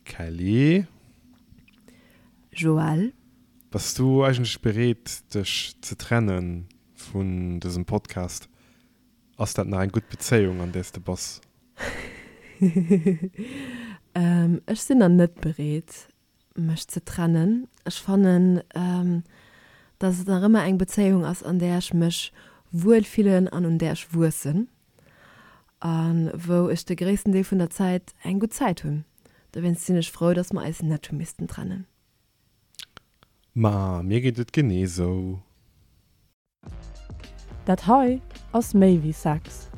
Kelly. Joël. Bass du eigentlech bereet dech ze trenne vun dësem Podcast? Ass dat nach eng gutt Bezéiung an där s de bass? Ech sinn nach net bereet mech ze trennen. Ech fannen, dass et nach ëmmer eng Bezéiung ass, an där ech mech wuel fillen an un där ech wuessen a wou ech de gréissten Deel vun der Zäit eng gutt Zäit hunn. Dowéinst sinn ech frou, dass mer eis net hu missten trennen. Ma mir geet et genee sou. Dat hei ass méi wéi Sex.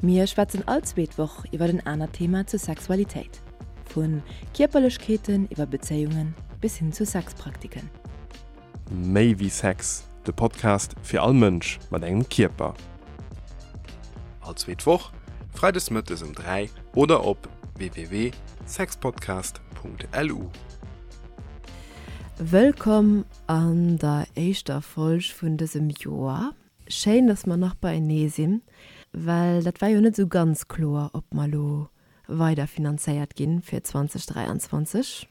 Mir schwätzen all zweet Woch iwwer en anert Thema zur Sexualitéit. Vu Kierperlechkeeten iwwer Bezéiungen bis hin zu Sexpraktiken. Méi wéi Sex, de Podcast fir all Mënsch mat engem Kierper. All zweet Woch, freides mëttes um 3 oder op www.sexpodcast.lu. Wëllkomm an der éischter Folg vun dësem Joer. Schéin, dass mer nach beienee sinn, well dat war jo net esou ganz kloer, ob mer elo weider finanzéiert ginn fir 2023.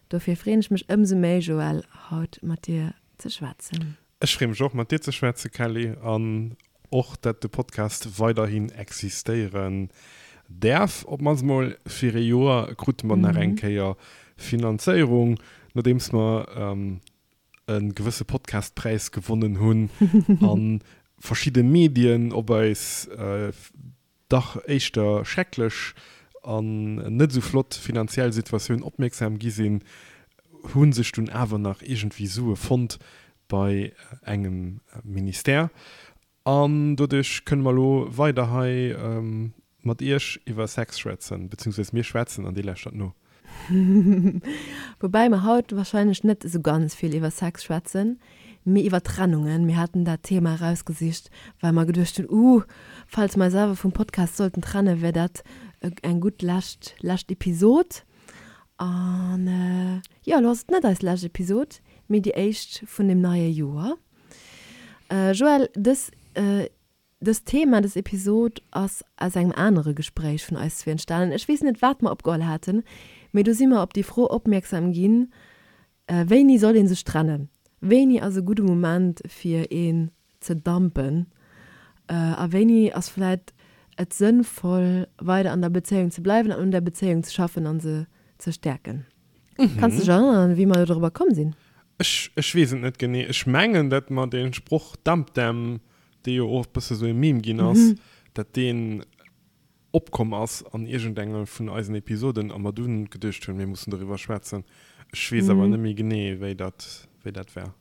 Dofir freeën ech mech ëmsou méi, Joël, haut mat dir ze schwätzen. Ech freeë mech och, mat dir ze schwätzen, Kelly, an och, dat de Podcast weiderhin existéieren däerf. Op d'mannst mol fir ee Joer krute mer nach eng Kéier Finanzéierung, nodeems mer e gewësse Podcastpräis gewonnen hunn a verschidde Medien op eis dach éischter schrecklech an net esou flott finanziell Situatioun opmierksam gi sinn, hu sech dunn awer nach iergendwéi Sue fonnt bei engem Ministère. An doduerch kënne mer elo weider hei mat Iech iwwer Sex schwätzen, beziehungsweise mir schwätzen an Dir lauschtert no. Woubäi mer haut wahrscheinlech net esou ganz vill iwwer Sex schwätzen, mee iwwer Trennungen. Mir haten dat Thema erausgesicht, well mer geduecht hunn, uh, falls mer eis awer vum Podcast sollten trennen, wär dat eng gutt lescht, lescht Episod. An jo, elo ass et net eis lescht Episod, mee déi éischt vun dem neie Joer. Joël, dës Dëst Thema, dës Episod ass aus engem anere Gespréich vun eis zwee entstanen. Ech weess net, wat mer opgeholl haten, mee do si mer op déi Fro opmierksam ginn, Wéini soll ee sech trennen? Wéini ass e gudde Moment, fir een ze dumpen? A wéini ass vläit et sënnvoll, weider an der Bezéiung ze bleiwen an un der Bezéiung ze schaffen a se ze stäerken? Kanns de dech erënneren, wéi mer do dorobber komm sinn? Ech, ech weess et net genee. Ech mengen, datt mer dee Sproch Dump them dee jo och e bësse sou e Meme ginn ass, dat deen opkomm ass an iergendenge vun eisen Episoden a mer dunn geduecht hunn, mir mussen doriwwer schwätzen. Ech weess awer net méi genee, wéi dat, wéi dat war.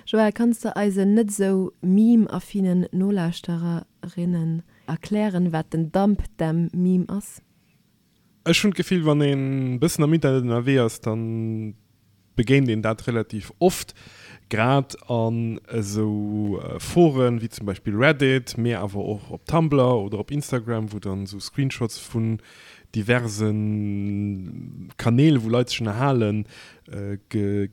Joël, kanns de eisen net esou meme-affinen Nolauschtererinnen erklären, wat den Dump Them Meme ass? Ech hunn d'Gefill, wann een e bëssen am Internet ënnerwee ass, da begéint een dat relativ oft, grad an esou Foren wéi zum Beispill Reddit, mee awer och op Tumblr oder op Instagram, wou dann esou Screenshots vun diverse Kanäl, wou Leit sech ënnerhalen,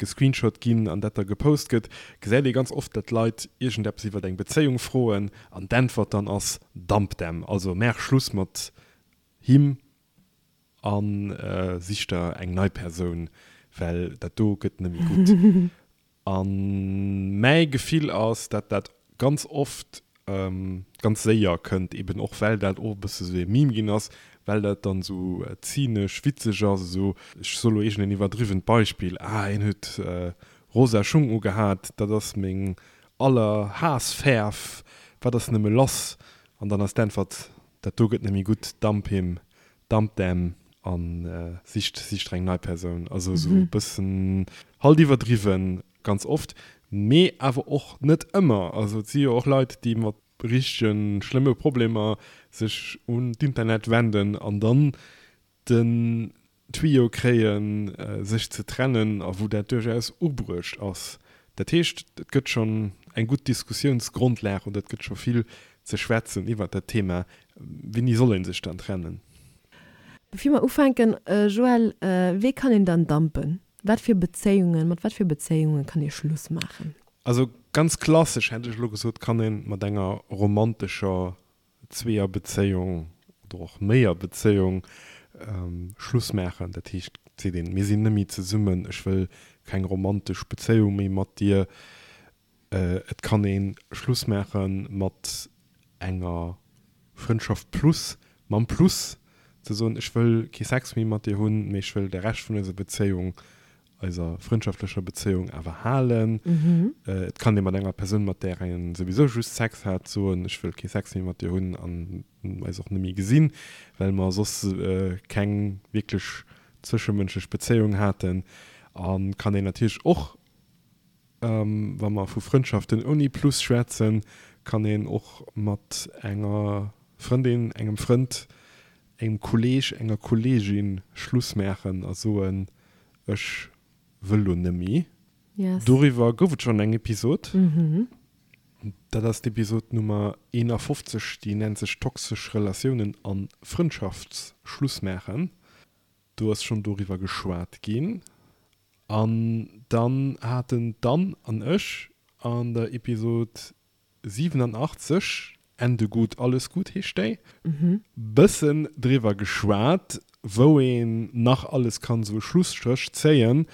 gescreenshot ginn an dat da gepost gëtt, gesäit ee ganz oft, datt Leit iergendeppes iwwer eng Bezéiung froen an d'Äntwert dann ass, Dump them, also maach Schluss mat him a sich der eng nei Persoun, well dat do gëtt net méi gutt. A mäi Gefill ass, dat dat ganz oft ganz séier kënnt, eben och well dat och e bësse sou e Meme ginn ass, well dat dann esou zynesch witzeg ass, esou, ech soe lo iergendeen iwwerdriwwent Beispill, ah hien huet rosa Schung ugehat, dat ass meng Allerhaassfäerf, wat ass nëmme lass? An dann ass d'Äntwert, Dat do gëtt net méi gutt, dump him, dump them an sicht sicht der eng nei Persoun. Also esou e bëssen halt iwwerdriwwen ganz oft, mee awer och net ëmmer. Also et si jo och Leit, déi mat richtege schlëmme Problemer sech un d'Internet wenden an dann den Tuyau kréien, sech ze trennen a wou dat duerchaus ubruecht ass. Dat heescht, et gëtt schonn eng gutt Diskussiounsgrondlag oder et gëtt scho vill ze schwätzen iwwert dat Thema, Wéini soll ee sech dann trennen? Bevir mer ufänken, Joël, wee kann een dann dumpen? Wat fir Bezéiungen, mat wat fir Bezéiunge kann ee Schluss maachen? Also ganz klassesch hätt ech elo gesot, kann ee mat enger romantescher Zweeërbezéiung oder och Méierbezéiung. Schluss maachen. Dat heescht, et seet een, mir sinn net méi zesummen, ech wëll keng romantesch Bezéiung méi mat dir. Et kann ee Schluss maache mat enger Frëndschaft plus, mam Plus ze soen, ech wëll kee Sex méi mat dir hunn, mee ech wëll de Rescht vun eiser Bezéiung, eiser frëndschaftlecher Bezéiung awer halen. Et kann ee mat enger Persoun, mat där een souwisou just Sex hat, soen, ech wëll kee Sex méi mat dir hunn an eis och net méi gesinn, well mer soss keng wierklech zwëschemënschlech Bezéiung haten. A kann een natierlech och Wa mer vu Frëndschaften ouni Plus schwätzen, kann een och mat enger Frëndin, engem Frënd, engem Kolleeg, enger Kolleegin Schluss maachen a soen, ech wëll lo nëmmi. Doriwwer gouf et schonn eng Episod. Dat ass d'Episod Nummer 51, déi nennt sech Toxesch Relatiounen a Frëndschaftsschluss maachen. Do ass schonn doriwwer geschwat ginn. An dann haten d'Anne an ech an der Episod 87, Ende gut, alles gut heescht déi, bëssen driwwer geschwat, wou een nach alles kann esou e Schlusstréch zéien.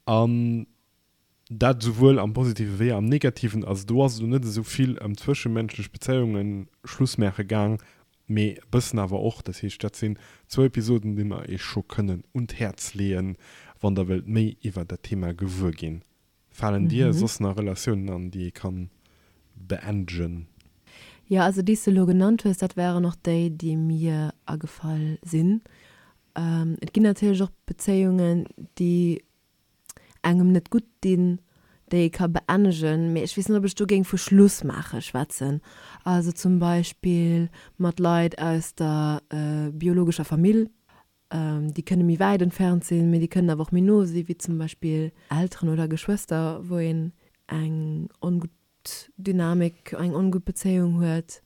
An Dat esouwuel am Positive wéi am Negativen. Also do ass et elo net esou vill ëm zwëschemenschlech Bezéiunge Schluss maache gaang, mee e bëssen awer och. Dat heescht, dat sinn zwou Episoden, déi mer iech scho kënnen un d'Häerz leeën, wann der wëllt méi iwwer dat Thema gewuer ginn. Falen dir soss nach Relatiounen an, déi ee kann beendegen? Jo, also déi s de elo genannt hues, dat waren och déi, déi mir agefall sinn. Et ginn natierlech och Bezéiungen, déi engem net gutt dinn, déi ee ka beennegen, mee ech weess net, ob ech do géing vu Schluss maache schwätzen. Also zum Beispill mat Leit aus der biologescher Famill, déi kënne méi wäit entfernt sinn, mee déi kënnen awer och méi no sinn, wéi zum Beispill Elteren oder Geschwëster, wou een eng ongutt Dynamik, eng ongutt Bezéiung huet.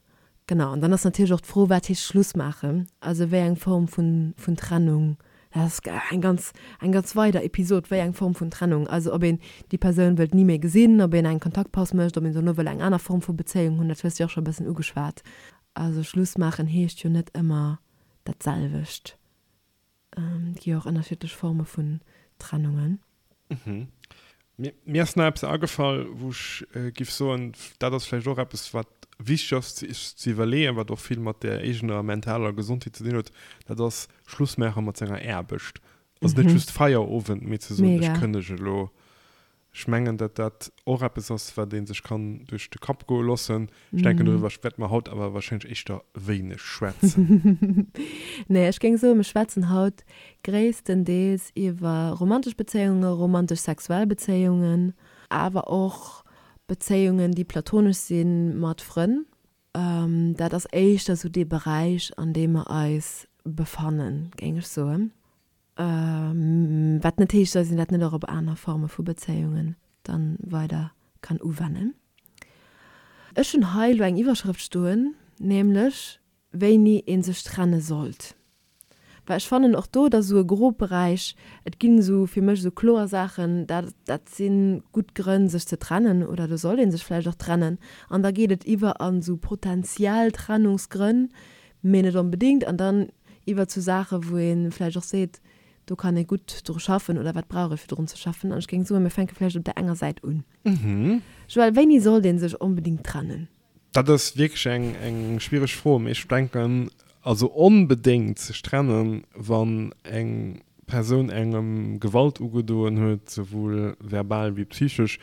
Genau, an dann ass natierlech och d'Fro, wat heescht Schluss maachen? Also wéi eng Form vun, vun Trennung? Dat ass eng ganz, eng ganz weider Episod, wéi eng Form vun Trennung? Also ob een déi Persoun wëllt ni méi gesinn, ob een eng Kontaktpaus mécht, ob een dono wëll eng aner Form vu Bezéiung hunn, dat hues de jo och scho e bëssen ugeschwat. Also Schluss maachen heescht jo net ëmmer dat selwecht. Et gi jo och ënnerschiddlech Forme vun Trennungen. Mir ass nach eppes agefall, wou ech giff soen, dat ass vläicht och eppes, wat wichteg ass sech ze iwwerleeën, wat och vill mat der eegener mentaler Gesondheet ze dinn huet, dat ass Schluss maache mat senger Aarbecht. Also net just Feierowend, mee ze soen, ech kënnege elo. Ech mengen, datt dat och eppes ass, wat ee sech kann duerch de Kapp goe loossen. Ech denken, doriwwer wäerte mer haut awer warscheinlech éischter wéineg schwätzen. Nee, ech géing soen, mir schwätzen haut gréisstendeels iwwer romantesch Bezéiungen, romantesch-sexuell Bezéiungen, awer och Bezéiungen, déi platonesch si mat Frënn. Dat ass éischter esou dee Beräich, an deem mer eis befannen, géing ech soen. Wat net heescht, dass een dat net och op aner Forme vu Bezéiungen dann weider kann uwennen. Ech hunn hei elo eng Iwwerschrëft stoen, nämlech wéini ee sech trenne sollt. Well ech fannen och do, et ass esou e Grobberäich, et ginn esou fir mech esou kloer Saachen, dat dat si gutt Grënn sech ze trennen oder do sollt ee sech vläicht och trennen. An da geet et iwwer an esou potentiell Trennungsgrënn, mee net onbedéngt, an dann iwwer zu Saache wou ee vläicht och seet, do kann ee gutt dru schaffen oder wat brauch ee fir drun ze schaffen. An ech géing soen, mir fänke vläicht op där enger Säit un. Joël, wéini sollt ee sech onbedéngt trennen? Dat ass wierklech eng eng schwiereg Fro, mee ech denken, also onbedéngt sech trennen, wann eng Persoun engem Gewalt ugedoen huet, souwuel verbal wéi psychesch,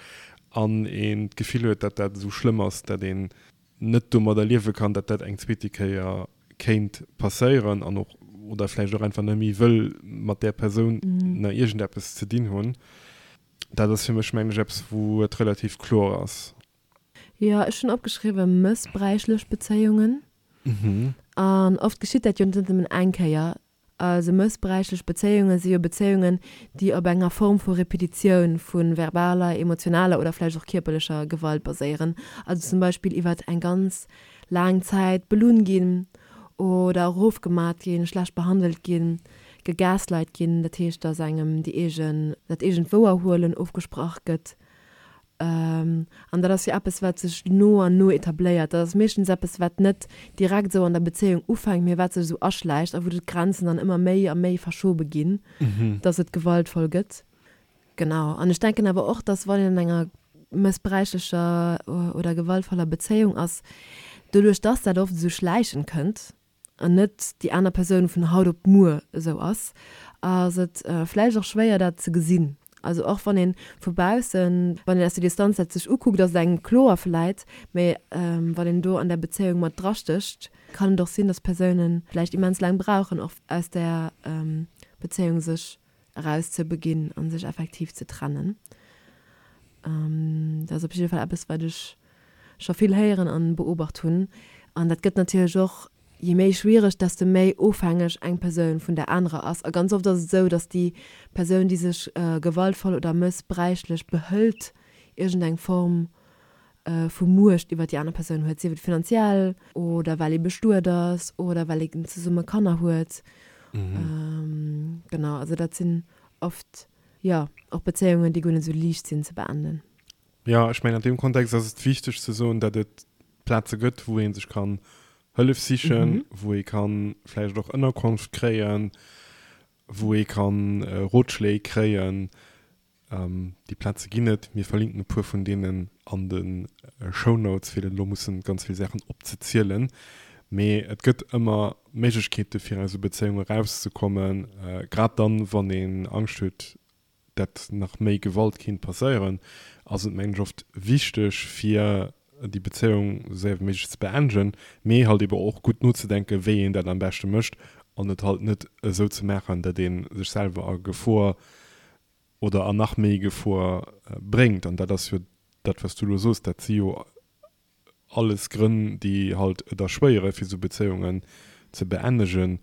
an een d'Gefill huet, datt dat esou schlëmm ass, datt een net domadder liewe kann, datt dat eng zweete Kéier kéint passéieren an och oder vläicht och einfach net méi wëll mat där Persoun nach iergendeppes ze dinn hunn. Dat ass fir mech, mengen ech, eppes, wou et relativ kloer ass. Jo, ech hunn opgeschriwwe mëssbräichlech Bezéiungen. An oft geschitt dat jo net nëmmen eng Kéier. Also mëssbräichlech Bezéiunge si jo Bezéiungen, déi op enger Form vu Repetitioun vu verbaler, emotionaler oder vläicht och kierperlecher Gewalt baséieren. Also zum Beispill iwwert eng ganz laang Zäit belunn ginn oder erofgemat ginn, schlecht behandelt ginn, gegaslight ginn, dat heescht, datt engem déi eegen, dat eegent Wouerhuelen ofgesprach gëtt. An dat ass jo eppes, wat sech no an no etabléiert. Dat ass meeschtens eppes, wat net direkt esou an der Bezéiung ufänkt, mee wat sech esou aschläicht a wou d'Grenzen dann ëmmer méi a méi verschobe ginn, dass et gewaltvoll gëtt. Genau. An ech denken awer och, dass wann een an enger mëssbräichlecher oder gewaltvoller Bezéiung ass, doduerch dass dat oft esou schläichend kënnt, an net déi aner Persoun vun haut op muer esou ass, ass et vläicht och schwéier dat ze gesinn. Also och wann ee vu baussen, wann een aus der Distanz dat sech ukuckt, ass et engem kloer vläit, mä wann een do an där Bezéiung mat drastécht, kann et och sinn, dass Persoune vläicht immens laang brauchen och aus där Bezéiung sech eraus ze beginn a sech effektiv ze trennen. Dat ass op jidde Fall eppes, wat ech scho vill héieren an beobacht hunn. An dat gëtt natierlech och, je méi schwiereg, desto méi ofhängeg eng Persoun vun der anerer ass. A ganz oft ass et esou, datt déi Persoun, déi sech gewaltvoll oder mëssbräichlech behëlt, iergendeng Form vu Muecht iwwer déi aner Persoun huet, sief et finanziell oder well ee bestuet ass oder well een zesumme Kanner huet. Genau, also dat sinn oft, jo, och Bezéiungen, déi guer net esou liicht sinn ze beenden. Jo, ech mengen an deem Kontext ass et wichteg ze soen, datt et Plaze gëtt, wou ee sech kann Hëllef sichen, wou ee kann vläicht och Ënnerkonft kréien, wou ee kann Rotschléi kréien. Déi Plaze ginn et. Mir verlinken e puer vun deenen an de Shownotes, fir net elo mussen ganz vill Saachen opzezielen. Mee et gëtt ëmmer Méiglechkeete fir aus esou Bezéiunge erauszekommen, grad dann, wann een Angscht huet, dat nach méi Gewalt kinnt passéieren, ass et mengen ech oft wichteg fir déi Bezéiung esou séier wéi méiglech ze beendegen, mee halt ebe och gutt nozedenken, wéi een dat am beschte mécht an et halt net esou ze maachen, dat ee sech selwer a Gefor oder an nach méi Gefor bréngt. An dat ass jo dat wat s du elo soos, dat si jo alles Grënn, déi halt et erschwéiere fir esou Bezéiungen ze beennegen.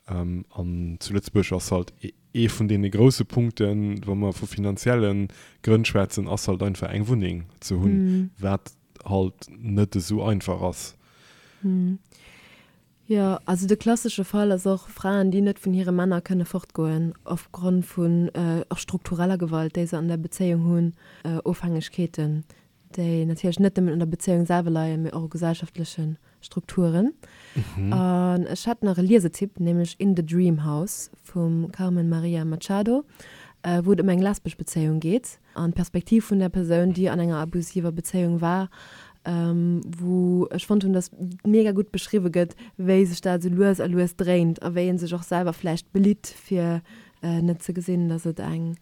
An zu Lëtzebuerg ass halt ee vun deene grousse Punkten, wa mer vu finanzielle Grënn schwätzen, ass halt einfach eng Wunneng ze hunn, wat halt net esou einfach ass. Jo, also de klassesche Fall ass och Fraen, déi net vun hire Männer kënne fortgoen opgrond vun och struktureller Gewalt, déi se an der Bezéiung hunn, Ofhängegkeeten, déi natierlech net nëmmen un der Bezéiung selwer leien, mee och u gesellschaftleche Strukturen. An ech hätt nach e Liesetipp, nämlech In the Dream House vum Carmen Maria Machado, wou et ëm eng lesbesch Bezéiung geet. An d'Perspektiv vun der Persoun, déi an enger abusiver Bezéiung war, wou ech fonnt hunn, dass mega gutt beschriwwe gëtt, wéi sech dat esou lues a lues dréint a wéi ee sech och selwer vläicht belitt, fir net ze gesinn, dass et eng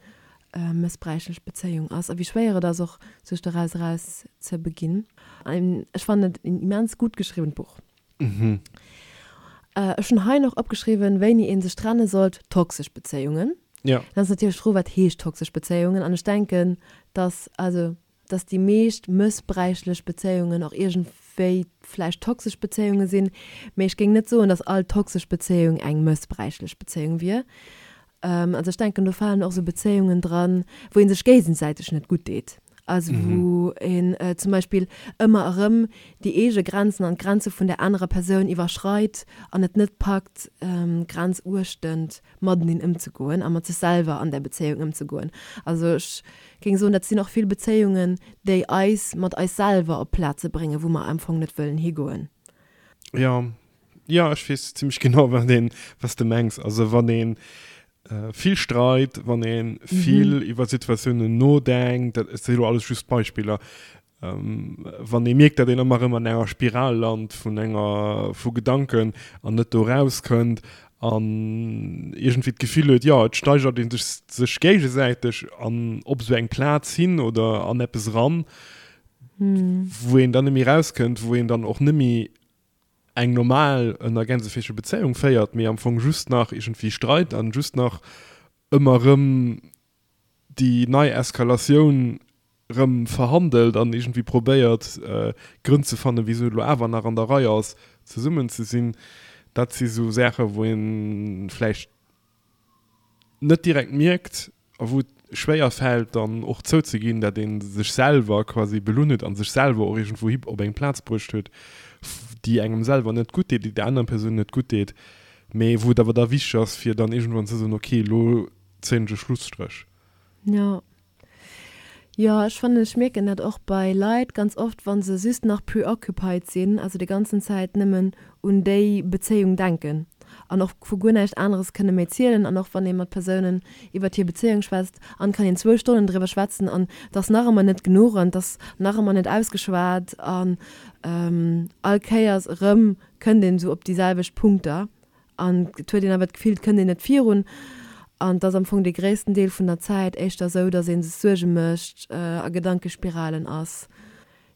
mëssbräichlech Bezéiung ass a wéi schwéier et ass och, sech doraus eraus ze beginn. Ech fannen et en immens gutt geschriwwent Buch. Ech hunn hei nach opgeschriwwen, wéini ee sech trenne sollt, toxesch Bezéiungen. Ja. Dann ass natierlech d'Fro, wat heescht toxesch Bezéiungen? An ech denken, dass, also, dass déi meescht mëssbräichlech Bezéiungen och iergendwéi vläicht toxesch Bezéiunge sinn. Mee ech géing net soen, dass all toxesch Bezéiung eng mëssbräichlech Bezéiung wier. Also ech denken, do falen och esou Bezéiungen dran, wou ee sech géigesäiteg net gutt deet. Also wou een zum Beispill ëmmer erëm déi eege Grenzen an d'Grenze vun der anerer Persoun iwwerschreit an et net packt, grenzuechtend mateneen ëmzegoen a mat sech selwer an där Bezéiung ëmzegoen. Also ech géing soen, dat sinn och vill Bezéiungen, déi eis mat eis selwer op Plaze bréngen, wou mer am Fong net wëllen higoen. Jo, Jo, ech weess zimmlech genau, wat een, wat s de mengs. Also wann ee vill streit, wann ee vill iwwer Situatiounen nodenkt, dat si lo alles just Beispiller, wann ee mierkt, datt een ëmmer erëm an enger Spiral lant vun enger, vu Gedanken an net do erauskënnt an iergendwéi d'Gefill huet, jo, et steigert ee sech, sech géigesäiteg an op esou eng Plaz hin oder an eppes eran, wou een dann net méi erauskënnt, wou een dann och net méi eng normal, ënner Gänseféische Bezéiung féiert, mee am Fong just nach iergendwéi Streit an just nach ëmmer rëm déi nei Eskalatioun rëm verhandelt an iergendwéi probéiert Grënn ze fannen, wisou et elo awer nach an der Rei ass zesummen ze sinn. Dat si sou Saache wou ee vläicht net direkt mierkt a wou et schwéier fält dann och zouzeginn, dat ee sech selwer quasi belunn huet a sech selwer och iergendwou hi op eng Plaz bruecht huet, déi engem selwer net gutt deet, déi der anerer Persoun net gutt deet, mee wou et awer da wichteg ass, fir dann iergendwann ze soen, okay, elo zéien ech e Schlusstréch. Jo. Jo, ech fannen, ech mierken dat och bei Leit ganz oft, wa se just nach preoccupied sinn, also déi ganzen Zäit nëmmen un déi Bezéiung denken an och vu guer näischt aneres kënne méi zielen an och wann ee mat Persounen iwwert hir Bezéiung schwätzt an kann een zwou Stonnen driwwer schwätzen an et ass nach ëmmer net genuch an et ass nach ëmmer net ausgeschwat an all Kéiers erëm kënnt een esou op déi selwecht Punkter An et huet een awer d'Gefill, et kënnt een net virun. An et ass am Fong dee gréissten Deel vun der Zäit éischter esou, datt ee sech Suerge mécht, a Gedankespiralen ass.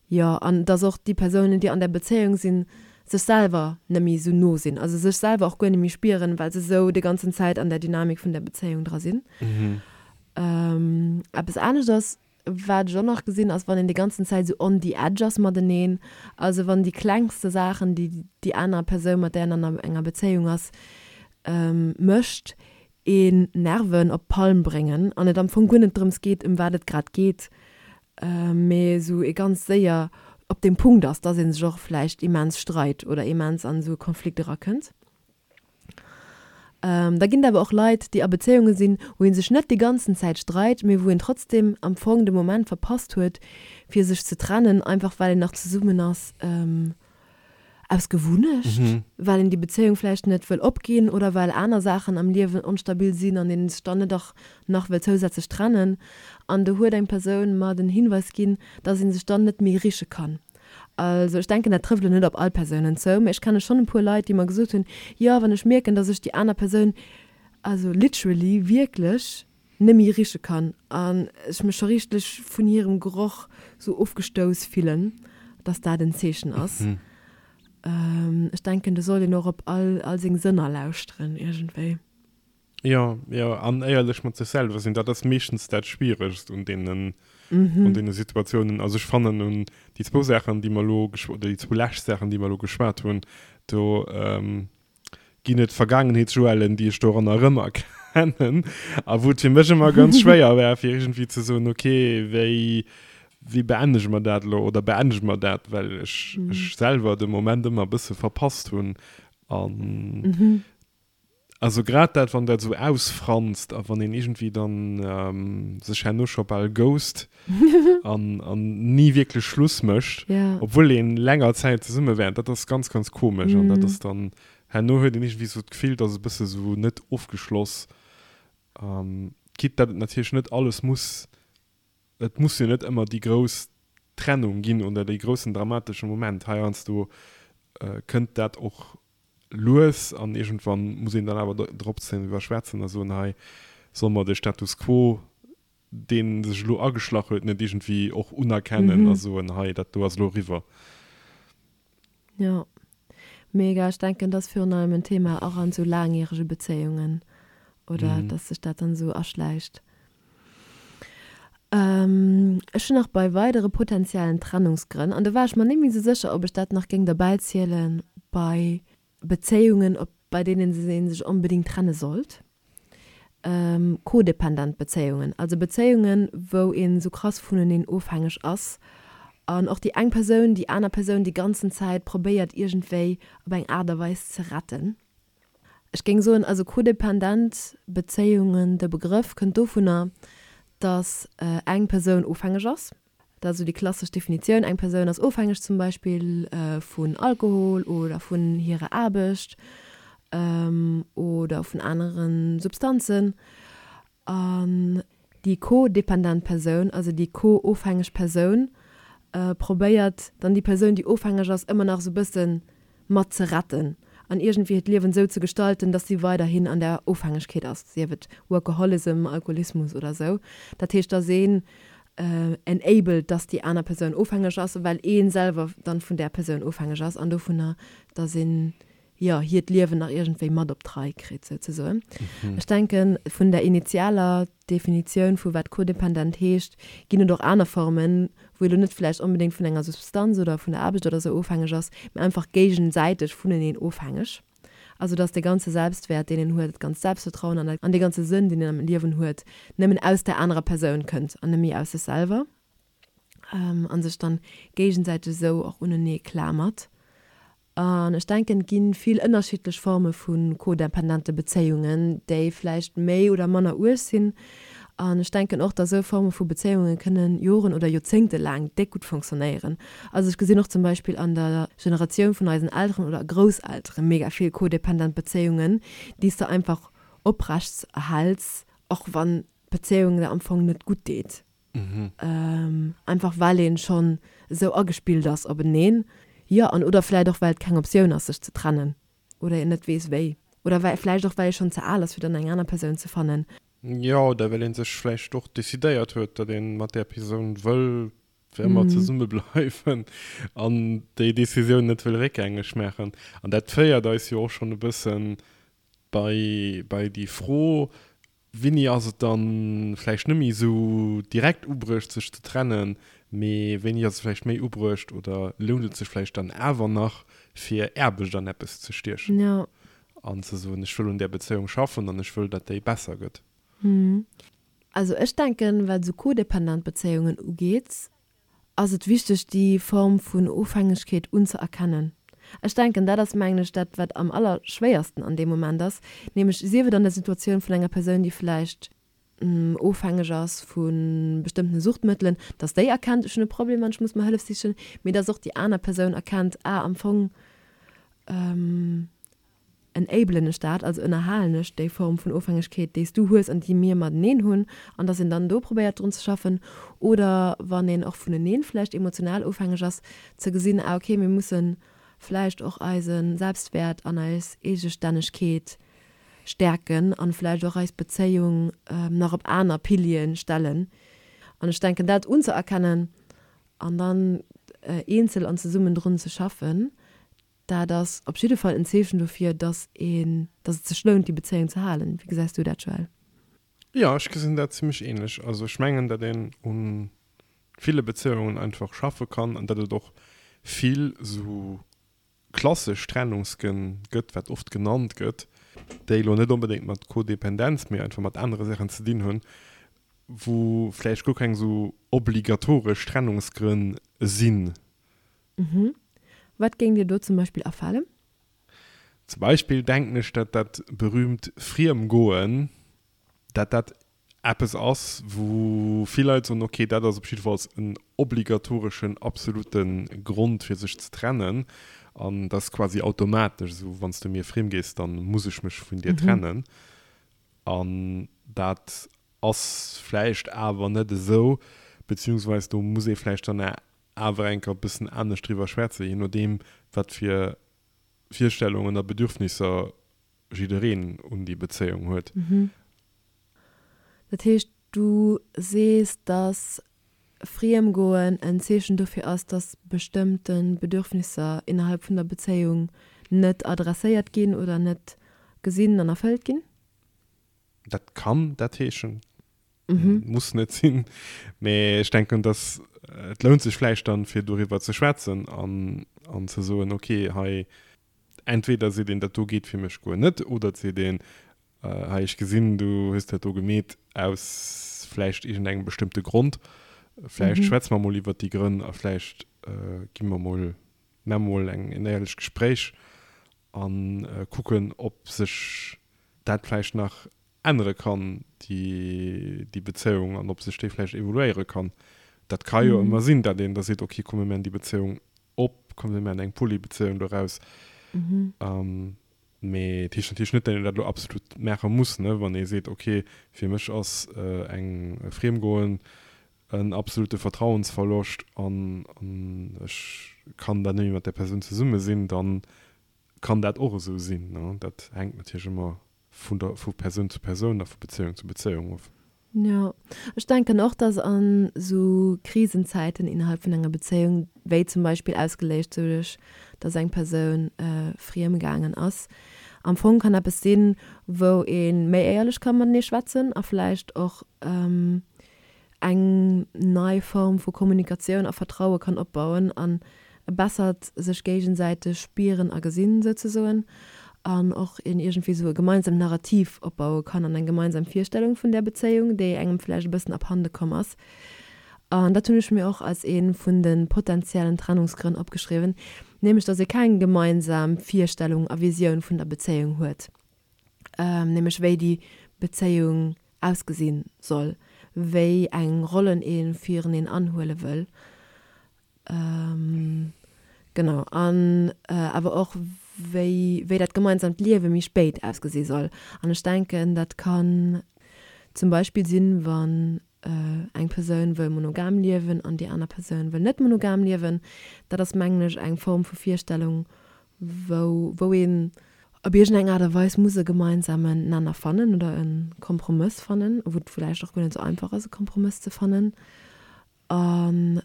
Jo, an datt och déi Persounen, déi an där Bezéiung sinn, sech selwer net méi esou no sinn, also sech selwer och guer net méi spieren, well se esou déi ganzen Zäit an där Dynamik vun där Bezéiung dra sinn. Eppes anescht ass, Wat ech och nach gesinn ass, wann een déi ganzen Zäit esou on the edge ass mateneen, also wann déi klengste Saachen, déi déi aner Persoun, mat där een an enger Bezéiung ass, mécht, een Nerven op d'Palm bréngen an et am Fong guer net drëms geet, ëm wat et grad geet, mee esou ee ganz séier op deem Punkt ass, dass ee sech och vläicht immens streit oder immens an esou e Konflikt erakënnt. Da ginn et awer och Leit, déi a Bezéiunge sinn, wou ee sech net déi ganzen Zäit streit, mee wou een trotzdem am Fong de Moment verpasst huet, fir sech ze trennen, einfach well een nach zesummen ass aus Gewunnecht, well een déi Bezéiung vläicht net wëll opginn oder well aner Saachen am Liewen onstabil sinn an een sech dann net och nach wëll zousätzlech trennen. An do huet eng Persoun mer den Hinweis ginn, dass ee sech dann net méi riche kann. Also ech denken, dat trëfft elo net op all Persounen zou, mä ech kenne schonn e puer Leit, déi mer gesot hunn, jo, wann ech mierken, datt ech déi aner Persoun, also literally, wierklech net méi riche kann an ech mech scho richteg vun hirem Geroch sou ofgestouss fillen, datt dat en Zeechen ass. Ech denken, do sollt een och op all all seng Sënner lauschteren iergendwéi. Jo, jo, an éierlech mat sech selwer sinn, dat ass meeschtens dat Schwieregst un deenen, un deene Situatiounen. Also ech fannen un déi zwou Saachen, déi mer elo geschw-, oder déi zwou lescht Saachen, déi mer elo geschwat hunn, do ginn et Vergaangenheetsjoellen, déi ech doranner erëmerkennen a wou et fir mech ëmmer ganz schwéier war, fir iergendwéi ze soen, okay, wéi, wéi beendege mer dat elo oder beendege mer dat, well ech, ech selwer de Moment ëmmer e bësse verpasst hunn an Also grad dat, wann dat esou ausfranst a wann een iergendwéi dann sech herno scho bal ghost an an ni wierklech Schluss mécht, obwuel een länger Zäit zesumme war, dat ass ganz, ganz komesch. An dat ass dann, herno huet een iergendwéi esou d'Gefill, et ass e bësse esou net ofgeschloss, quitte dat et natierlech net alles muss Et muss jo net ëmmer déi grouss Trennung ginn oder dee groussen dramatesche Moment. Heiansdo kënnt dat och lues an iergendwann muss een dann awer drop driwwer schwätzen a soen, hei solle mer de Status quo, dee sech elo ageschlach huet, net iergendwéi och unerkennen a soen, hei dat do ass elo eriwwer. Jo, mega. Ech denken, dat ass virun allem en Thema och an esou laangjärege Bezéiungen, oder dass sech dat dann esou aschläicht. Ech hunn nach bei weidere potenziellen Trennungsgrënn, an do war ech mer net méi esou sécher, ob ech dat nach géing derbäizielen, bei Bezéiungen, op bei deenen ee sech onbedéngt trenne sollt, codependent Bezéiungen, also Bezéiungen, wou een esou krass vuneneen ofhängeg ass an och déi eng Persoun déi aner Persoun déi ganzen Zäit probéiert iergendwéi op eng Aart a Weis ze retten. Ech géing soen, also codependent Bezéiungen, de Begrëff kënnt dovunner, dass eng Persoun ofhängeg ass. Dat ass esou déi klassesch Definitioun, eng Persoun ass ofhängeg zum Beispill vun Alkohol oder vun hirer Aarbecht oder vun anere Substanzen. An déi co-dependent Persoun, also déi co-ofhängeg Persoun, probéiert dann déi Persoun, déi ofhängeg ass, ëmmer nach esou e bësse mat ze retten an iergendwéi hiert Liewen esou ze gestalten, dass si weiderhin an där Ofhängegkeet ass, sief et Workaholism, Alkoholismus oder esou. Dat heescht, dass een enabled, dass déi aner Persoun ofhängeg ass, well ee selwer dann vun där Persoun ofhängeg ass an dovunner, dass een, jo, hiert Liewen nach iergendwéi mat op d'Rei kritt, souzesoen. Ech denken, vun der initialer Definitioun vu wat codependent heescht, ginn et och aner Formen, wou ee lo net vläicht onbedéngt vun enger Substanz oder vun der Aarbecht oder sou ofhängeg ass, mä einfach géigesäiteg vuneneen ofhängeg. Also dass dee ganze Selbstwäert, deen een huet, dat ganzt Selbstvertrauen an an dee ganze Sënn, deen een am Liewen huet, nëmmen aus där anerer Persoun kënnt an net méi aus sech selwer. An sech dann géigesäiteg esou och unenee klamert. An ech denken, et gi vill ënnerschiddlech Forme vu codependente Bezéiungen, déi vläicht méi oder manner uerg sinn. An ech denken och, dass esou Forme vu Bezéiunge kënnen Joren oder Joerzéngte laang déck gutt fonctionnéieren. Also ech gesinn och zum Beispill an der Generatioun vun eisen Elteren oder Grousseltere mega vill codependent Bezéiungen, déi s de einfach oprechts erhäls, och wann d'Bezéiung der am Fong net gutt deet. Einfach well een schonn esou agespillt ass openeen. Jo, an oder vläit och well et keng Optioun ass sech ze trennen oder een net weess wéi. Oder well vläicht och well ee schonn ze al ass fir dann eng aner Persoun ze fannen. Jo, oder well ee sech vläicht och decidéiert huet, datt ee mat där Persoun wëll fir ëmmer zesumme bleiwen an déi Decisioun net wëll réckgängeg maachen. An dat féiert eis jo och schonn e bëssen bei bei déi Fro, Wéini ass et dann vläicht net méi esou direkt ubruecht sech ze trennen, mee wéini ass et vläicht méi ubruecht oder lount et sech vläicht dann awer nach fir Aarbecht an eppes ze stiechen Ja. an ze soen, ech wëll un där Bezéiung schaffen an ech wëll, datt déi besser gëtt. Also ech denken, wat esou codependent Bezéiungen ugeet, ass et wichteg déi Form vun Ofhängegkeet unzëerkennen. Ech denken, dat ass, mengen ech, dat wat am allerschwéiersten an deem Moment ass, nämlech sief et an der Situatioun vun enger Persoun, déi vläicht ofhängeg ass vu bestëmmtene Suchtmëttelen, dass déi erkennt, ech hunn e Problem an ech muss mer Hëllef sichen, mee dass och déi aner Persoun erkennt, ah, am Fong enablen ech dat, also ënnerhalen ech déi Form vun Ofhängegkeet, déi s du hues an déi mir mateneen hunn, an dass een dann do probéiert drun ze schaffen. Oder wann een och vuneneen vläicht emotional ofhängeg ass, ze gesinn, ah okay, mir musse vläicht och eise Selbstwäert an eis Eegestännegkeet stäerken an vläicht och eis Bezéiung nach op aner Piliere stellen. An ech denken, dat unzëerkennen an dann eenzel an zesummen drun ze schaffen, Dat ass op jidde Fall en Zeechen dofir, dass een, dass et sech lount, déi Bezéiung ze halen. Wéi gesäis du dat, Joël? Jo, ech gesinn dat zimmlech ähnlech. Also ech mengen, datt een u ville Bezéiungen einfach schaffe kann an datt et och vill esou klassesch Trennungsgrënn gëtt, wat oft genannt gëtt, déi elo net onbedéngt mat Codependenz, mee einfach mat anere Saachen ze dinn hunn, wou vläicht guer keng esou obligatoresch Trennungsgrënn sinn. Mhm. Wat géing dir do zum Beispill afalen? Zum Beispill denken ech, dat dat berühmt Friemgoen, dat dat eppes ass, wou vill Leit soen, okay, dat ass op jiddefalls en obligatoreschen, absolute Grond fir sech ze trennen an dat ass quasi automatesch esou, wann s du mir friem gees, da muss ech mech vun dir trennen. An dat ass vläicht awer net esou, beziehungsweis do muss ee vläicht dann awer eng Kéier e bëssen anescht driwwer schwätzen, je nodeem wat fir Virstellungen a Bedürfnisser jiddereen un déi Bezéiung huet. Dat heescht, du sees, dass Friemgoen en Zeechen dofir ass, dass bestëmmte Bedürfnisser innerhalb vun der Bezéiung net adresséiert ginn oder net gesinn an erfëllt ginn? Dat kann dat heeschen. Muss net sinn. Mee ech denken, dass et lount sech vläicht dann, fir doriwwer ze schwätzen an, an ze soen, okay, hei, entweder seet een, dat do geet fir mech guer net, oder et seet een, hei, ech gesinn, du hues dat do gemeet aus vläicht iergendengem bestëmmte Grond, vläicht schwätze mer mol iwwert déi Grënn a vläicht gi mer mol, maache mer mol eng, en éierlecht Gespréich a kucken, ob sech dat vläicht nach ännere kann, déi, déi Bezéiung, an ob sech déi vläicht evoluéiere kann. Dat ka jo ëmmer sinn, datt een da seet, okay, komm mir maachen déi Bezéiung op, komm mir maachen eng Polybezéiung doraus. Mee et heescht natierlech net, datt een dat elo absolut maache muss, ne, wann ee seet, okay, fir mech ass eng Friemgoen en absolute Vertrauensverloscht an ech kann da net méi mat där Persoun zesumme sinn, da kann dat och esou sinn. Dat hänkt natierlech ëmmer vun der vu Persoun zu Persoun a vu Bezéiung zu Bezéiung of. Jo, ech denken och, dass an esou Krisenzäiten innerhalb vun enger Bezéiung, wéi zum Beispill ausgeléist doduerch, dass eng Persoun friem gaangen ass, am Fong kann eppes sinn, wou ee méi éierlech ka matenee schwätzen a vläicht och eng nei Form vu Kommunikatioun a Vertraue kann opbauen an e bessert sech géigesäiteg spieren a gesinn souzesoen an och een iergendwéi sou e gemeinsamt Narrativ opbaue kann an eng gemeinsam Virstellung vun där Bezéiung, déi engem vläicht e bëssen abhande komm ass. An dat hunn ech mir och als ee vun de potenziellen Trennungsgrënn opgeschriwwen, nämlech datt ee keng gemeinsam Virstellung a Visioun vun der Bezéiung huet, nämlech wéi déi Bezéiung ausgesinn soll. wéi eng Rollen ee fireneen anhuele wëll. Genau, an awer och wéi, wéi dat gemeinsamt Liewe méi spéit ausgesi soll. An ech denken, dat kann zum Beispill sinn, wann eng Persoun wëll monogam liewen an déi aner Persoun wëll net monogam liewen. Dat ass, mengen ech, eng Form vu Virstellung, wou, wou een op iergendeng Aart a Weis muss e gemeinsamen Nenner fannen oder e Kompromëss fannen, wou et vläicht och guer net esou einfach ass, e Kompromëss ze fannen. An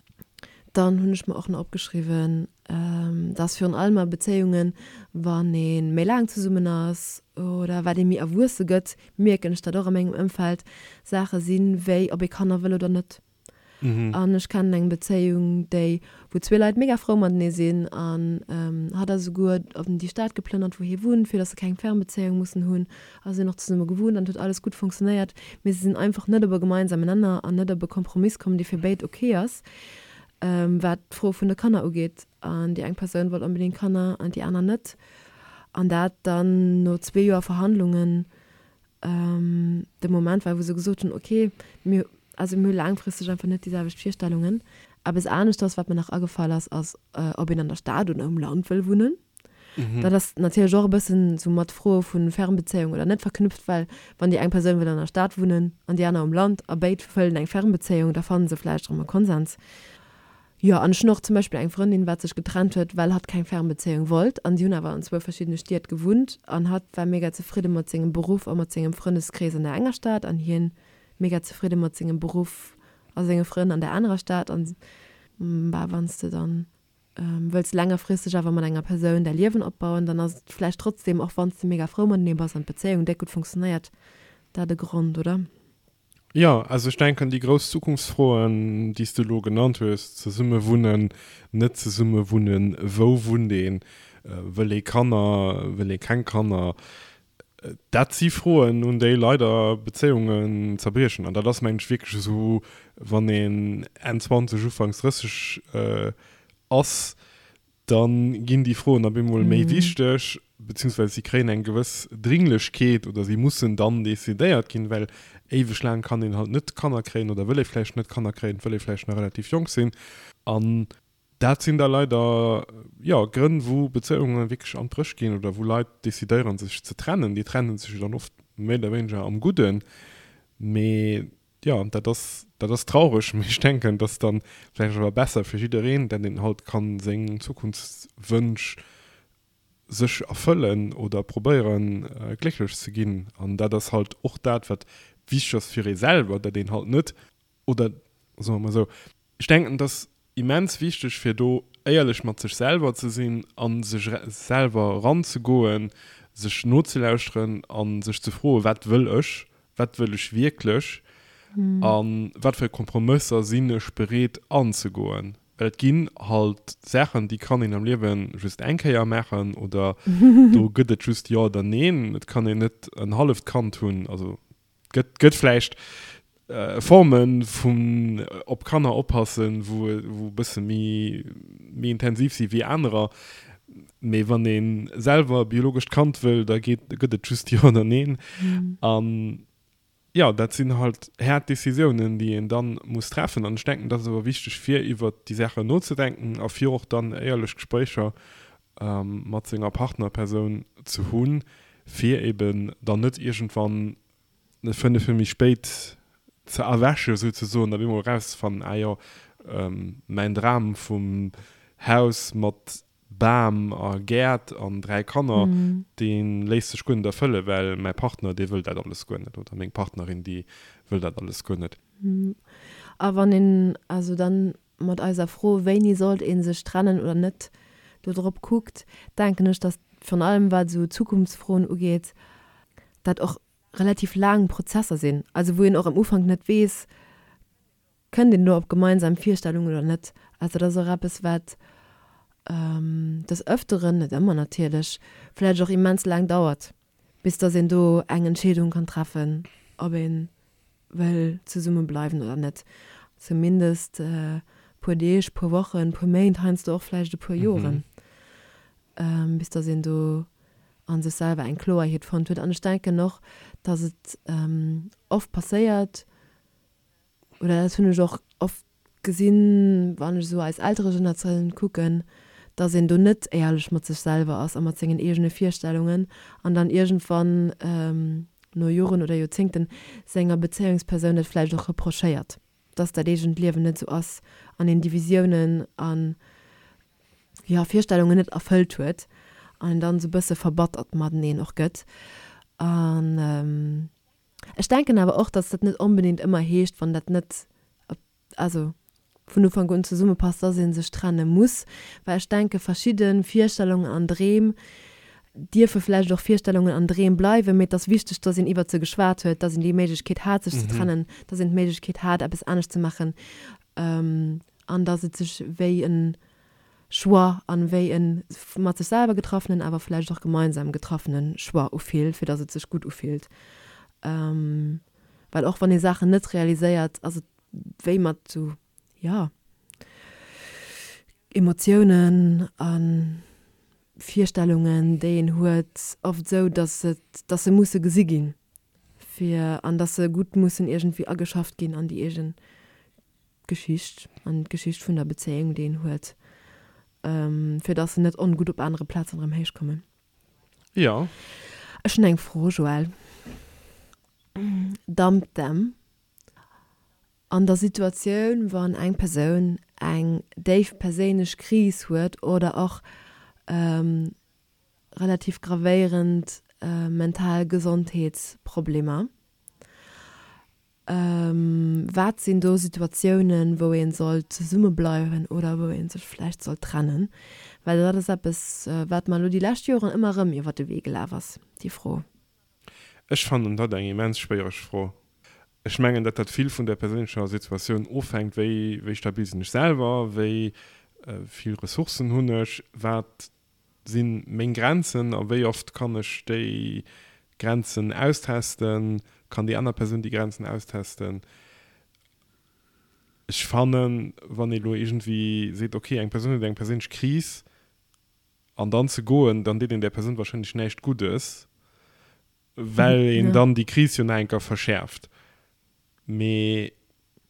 dann hunn ech mer och nach opgeschriwwen, dass virun allem a Bezéiungen, wann ee méi laang zesummen ass oder wat ee méi erwuesse gëtt, mierken ech dat och a mengem Ëmfeld, Saache sinn, wéi ob ee Kanner wëll oder net. An ech kennen eng Bezéiung, déi, wou zwee Leit mega frou matenee sinn an hatt ass esouguer op déi Stad geplënnert, wou hie wunnt, fir dass se keng Fernbezéiung mussen hunn a sinn och zesumme gewunnt an et huet alles gutt funktionéiert, mee se sinn einfach net op e gemeinsamen Nenner an net op e Kompromiss komm, dee fir béid ok ass, wat d'Fro vun de Kanner ugeet. An déi eng Persoun wollt onbedéngt Kanner an déi aner net. An dat dann no zwee Joer Verhandlungen de Moment war, wou se gesot hunn, ok, mir, also mir hu laangfristeg einfach net déi selwecht Virstellungen. Eppes aneschters, wat mir nach agefall ass, ass, ob een an der Stad oder um Land wëll wunnen. Dat ass natierlech och e bëssen esou mat Froe vu Fernbezéiung oder net verknüpft, well wann déi eng Persoun wëll an der Stad wunnen an déi aner um Land a béid wëllen eng Fernbezéiung, da fanne se vläicht erëm e Konsens. Jo, an ech hunn och zum Beispill eng Frëndin, wat sech getrennt huet, well hatt keng Fernbezéiung wollt an si hunn awer an zwou verschiddene Stied gewunnt an hatt war mega zefridde mat sengem Beruff a mat sengem Frëndeskrees an der enger Stad an hien mega zefridde mat sengem Beruff a senge Frënn an der anerer Stad an bah, wann s de dann wëlls längerfristeg awer mat enger Persoun däi Liewen opbauen, dann ass et vläicht trotzdem, och wann s de mega frou matenee bass an d'Bezéiung déck gutt funktionéiert, dat e Grond, oder? Jo, also ech denken, déi grouss Zukunftsfroen, déi s de elo genannt hues, zesumme wunnen, net zesumme wunnen, wou wunnt een, wëll ee Kanner, wëll ee keng Kanner, dat si Froen, un déi leider Bezéiungen zerbriechen. An dat ass, mengen ech, wierklech esou, wann een Enn 20, Ufanks 30 ass, da ginn déi Froen op eemol méi wichteg, beziehungsweise si kréien eng gewëss Dringlechkeet oder si mussen dann decidéiert ginn, well éiweg laang kann een halt net Kanner kréien oder wëll ee vläicht net Kanner kréien, wëll ee vläicht nach relativ jonk sinn. An dat sinn da leider, jo, Grënn, wou Bezéiunge wierklech an d'Bréch ginn oder wou Leit decidéieren, sech ze trennen. Déi trenne sech jo dann oft méi oder wéineger am Gudden, mee Jo, dat ass, dat ass traureg, mee ech denken, et ass dann vläicht awer besser fir jiddereen, dat een halt kann seng Zukunftswënsch sech erfëllen oder probéieren glécklech ze ginn. An dat ass halt och dat, wat wichteg ass fir ee selwer, dat een halt net, oder soe mer esou, ech denken, et ass immens wichteg fir do éierlech mat sech selwer ze sinn a sech selwer eranzegoen, sech nozelauschteren a sech ze froen, wat wëll ech, wat wëll ech wierklech a wat fir Kompromësser sinn ech bereet anzegoen. Well et ginn halt Saachen, déi kann een am Liewe just eng Kéier maachen oder do gëtt et just Jo oder Neen. Et kann een net en halleft Kand hunn, also Gëtt, gëtt vläicht Forme vun op Kanner oppassen, wou, wou e bësse méi, méi intensiv si wéi anerer. Mee wann ee selwer e biologescht Kand wëll, da geet, gëtt et just Jo oder Neen. An jo, dat sinn halt haart Decisiounen, déi een da muss treffen. An ech denken, dat ass awer wichteg, fir iwwert déi Saachen nozedenken a fir och dann éierlech Gespréicher mat senger Partnerpersoun ze hunn, fir eben dann net iergendwann 5 Joer méi spéit ze erwächen souzesoen, op eemol erauszefannen, ah jo, mäin Dram vum Haus mat Bam a Gäert an 3 Kanner, dee léisst sech guer net erfëllen, well mäi Partner, dee wëll dat alles guer net oder meng Partnerin, déi wëll dat alles guer net. A wann een also dann mat eiser Fro, wéini sollt ee sech trennen oder net, do drop kuckt, denken ech, datt virun allem wat esou Zukunftsfroen ugeet, dat och relativ laang Prozesser sinn, also wou een och am Ufank net weess, kënnt een do op gemeinsam Virstellungen oder net. Also dat ass och eppes, wat des Ëfteren, net ëmmer natierlech, vläicht och immens laang dauert, bis datt een do eng Entscheedung kann treffen, ob ee wëll zesumme bleiwen oder net. Zumindest e puer Deeg, puer Wochen, puer Méint, heiansdo och vläicht e puer Joren, bis datt een do a sech selwer eng Kloerheet fonnt huet. An ech denken och, datt et oft passéiert. Oder dat hunn ech och oft gesinn, wann ech esou eis Elteregeneratioun kucken, dass een do net éierlech mat sech selwer ass a mat sengen eegene Virstellungen an dann iergendwann no Joren oder Joerzéngten senger Bezéiungspersoun dat vläicht och reprochéiert, dass dat eegent Liewen net esou ass an een déi Visiounen a jo Virstellungen net erfëllt huet an een dann esou e bësse verbattert mateneen och gëtt. An ech denken awer och, dass dat net onbedéngt ëmmer heescht, wann dat net also vun Ufank un zesummepasst, dass ee sech trenne muss, well ech denke verschidde Virstellungen an Dreem dierfe vläicht och Virstellungen an Dreem bleiwen, mee et ass wichteg, dass een iwwert se geschwat huet, dass een déi Méiglechkeet hat sech ze trennen, dass een d'Méiglechkeet hat eppes anescht ze maachen an dass et sech wéi e Choix an wéi e mat sech selwer getraffenen, awer vläicht och gemeinsam getraffene Choix ufillt, fir dass et sech gutt ufillt. Well och wann ee Saachen net realiséiert, ass et wéi mat sou, jo, Emotiounen a Virstellungen, déi een huet, oft sou, dass et, dass se musse gesi ginn, fir, an dass se gutt mussen iergendwéi ageschafft ginn an déi eegen Geschicht, an d'Geschicht vun der Bezéiung, déi een huet, fir dass se net ongutt op anere Plazen erëm héichkommen. Jo. Ech hunn eng Fro, Joël. Dump them. An der Situatioun, wann eng Persoun eng déif perséinlech Kris huet oder och relativ gravéierend mental Gesondheetsproblemer, Wat sinn do Situatiounen, wou ee sollt zesummebleiwen oder wou ee sech vläicht sollt trennen? Well dat ass eppes, wat mer elo déi lescht Joren ëmmer erëm iwwer de Wee gelaf ass, déi Fro. Ech fannen dat eng immens schwéiereg Fro. Ech mengen, datt dat vill vun der perséinlecher Situatioun ofhänkt, wéi wéi stabil sinn ech selwer, wéi vill Ressourcen hunn ech, wat sinn meng Grenzen a wéi oft kann ech déi Grenzen austesten, kann déi aner Persoun déi Grenzen austesten. Ech fannen, wann ee lo iergendwéi seet, ok, eng Persoun huet eng perséinlech Kris an dann ze goen, dann deet een där Persoun wahrscheinlech näischt Guddes, well een dann déi Kris jo nach eng Kéier verschäerft. Mee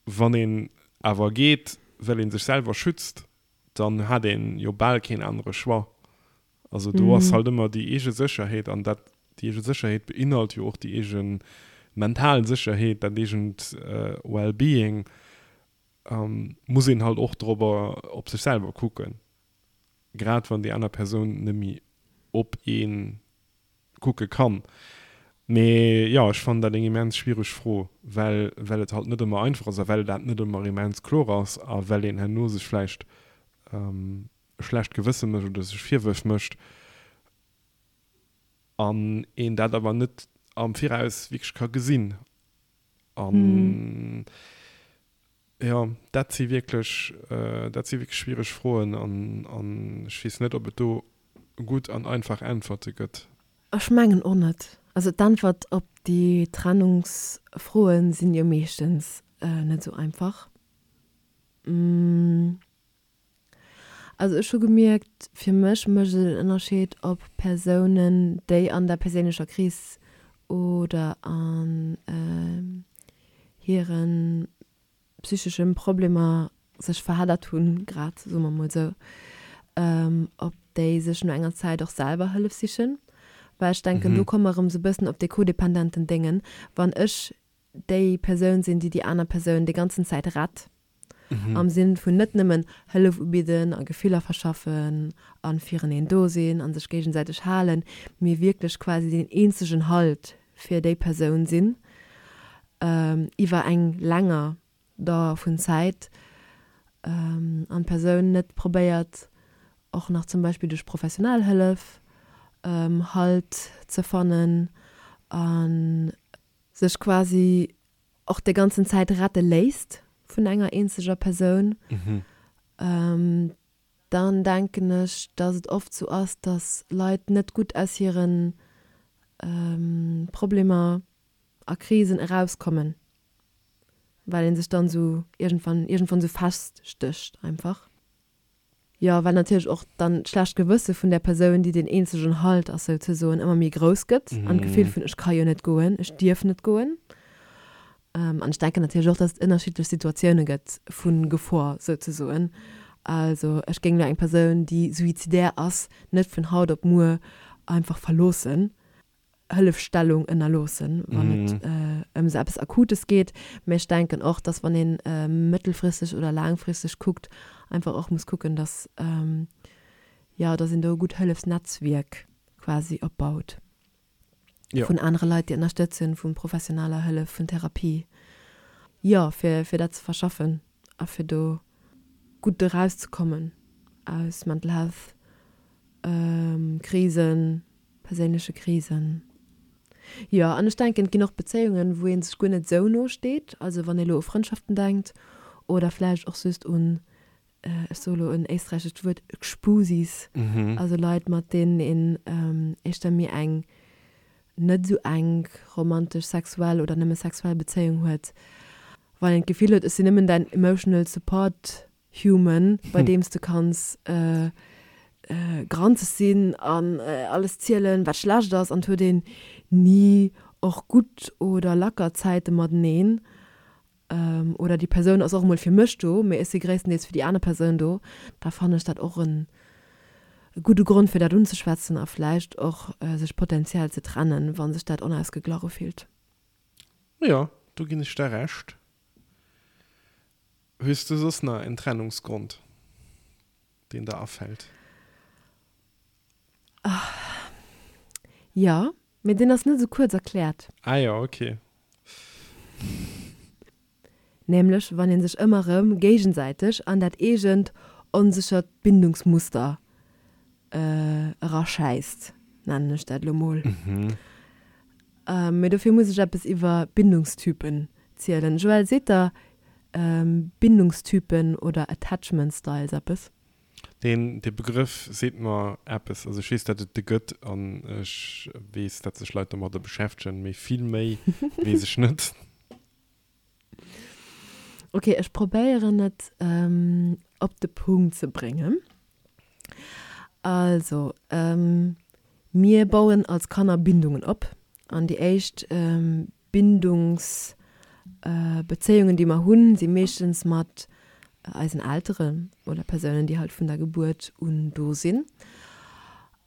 wann een awer geet, well ee sech selwer schützt, dann hat een jo bal keen anere Choix. Also do ass halt ëmmer déi eege Sécherheet an dat, déi eege Sécherheet beinhalt jo och déi eege mental Sécherheet, dat eegent Well-being, muss een halt och dorobber op sech selwer kucken, grad wann déi aner Persoun net méi op ee kucke kann. Mee jo, ech fannen dat eng immens schwiereg Fro, well well et halt net ëmmer einfach ass a well dat net ëmmer immens kloer ass a well een herno sech vläicht e schlecht Gewësse mécht oder sech Virwërf mécht an een dat awer net am Viraus wierklech ka gesinn. An jo, dat si wierklech, dat si wierklech schwiereg Froen an an ech weess net, ob et do gutt an einfach Äntwerte gëtt. Ech mengen och net. Also d'Äntwert op déi Trennungsfroen sinn jo meeschtens net esou einfach. Also ech hu gemierkt, fir mech mécht et en Ënnerscheed, ob Persounen, déi an der perséinlecher Kris oder an hire psychesche Problemer sech verheddert hunn, grad, soe mer mol esou, ob déi sech no enger Zäit och selwer Hëllef sichen. Well ech denken, do komme mer erëm esou e bëssen op dee codependenten Déngen, wann ech déi Persoun sinn, déi déi aner Persoun déi ganzen Zäit rett, am Sinn vun net nëmmen Hëllef ubidden a Gefiller verschaffen a fireneen do sinn a sech géigesäiteg halen, mee wierklech quasi deen eenzegen Halt fir déi Persoun sinn iwwer eng länger Dauer vun Zäit an d'Persoun net probéiert och nach zum Beispill duerch professionell Hëllef Halt ze fannen a sech quasi och déi ganzen Zäit rette léisst vun enger eenzeger Persoun, dann denken ech, dass et oft sou ass, dass Leit net gutt aus hire Problemer a Krisen erauskommen, well ee sech dann sou iergendwann iergendwann sou feststécht einfach. Jo, well natierlech och dann d'schlecht Gewësse vun där Persoun, déi deen eenzegen Halt ass souzesoen, ëmmer méi grouss gëtt an d'Gefill vun ech ka jo net goen, ech dierf net goen. An ech denken natierlech och, dass et ënnerschiddlech Situatioune gëtt vu Gefor souzesoen. Also ech géing elo eng Persoun, déi suizidär ass, net vun haut op muer einfach verloossen, Hëllefstellung ënnerloossen, wann et ëm esou eppes Akutes geet. Mä ech denken och, dass wann ee mëttelfristeg oder laangfristeg kuckt, einfach och muss kucken, dass, jo, dass een do e gutt Hëllefsnetzwierk quasi opbaut. Jo. Vun anere Leit, déi ënnerstëtzen, vu professioneller Hëllef, vun Therapie. Jo, fir, fir dat ze verschaffen a fir do gutt erauszekommen aus Mental Health Krisen, perséinleche Krisen. Jo, an ech denken, et ginn och Bezéiungen, wou ee sech guer net esou no steet. Also wann ee lo u Frëndschaften denkt oder vläicht och just un ech soe lo en éisträichescht Wuert, Gspusis, also Leit, mat deenen een éischter méi eng net esou enk romantesch, sexuell oder nëmme sexuell Bezéiung huet, wann een d'Gefill huet, ech sinn nëmmen däin emotional support human, bei deem s de kanns granzeg sinn an alles zielen, wat schlecht ass, an et huet een ni och gutt oder lacker Zäite mateneen. Oder déi Persoun ass och emol fir mech do, mee ech si gréisstendeels fir déi aner Persoun do, da fannen ech dat och en gudde Grond fir dat unzeschwätzen a vläicht och sech potenziell ze trennen, wa sech dat onausgeglach ufillt. Jo, do ginn ech der Recht. Hues du soss nach en Trennungsgrond, deen der afält? Jo, Mee deen ass net esou kuerz erkläert. Ah jo, ok. Nämlech wann ee sech ëmmer erëm géigesäiteg an dat eegent onséchert Bindungsmuster eraschäisst, nennen ech dat elo mol. Mee dofir muss ech eppes iwwer Bindungstypen zielen. Joël, seet der Bindungstypen oder Attachment Styles eppes? Deen, dee Begrëff seet mer eppes. Also ech weess, datt et de gëtt an ech weess, datt sech Leit domadder beschäftegen, mee vill méi weess ech net. Ok, ech probéieren et op de Punkt ze bréngen. Also, mir bauen als Kanner Bindungen op an déi éischt Bindungsbezéiungen, déi mer hunn, si meeschtens mat eisen Elteren oder Persounen, déi halt vun der Gebuert un do sinn.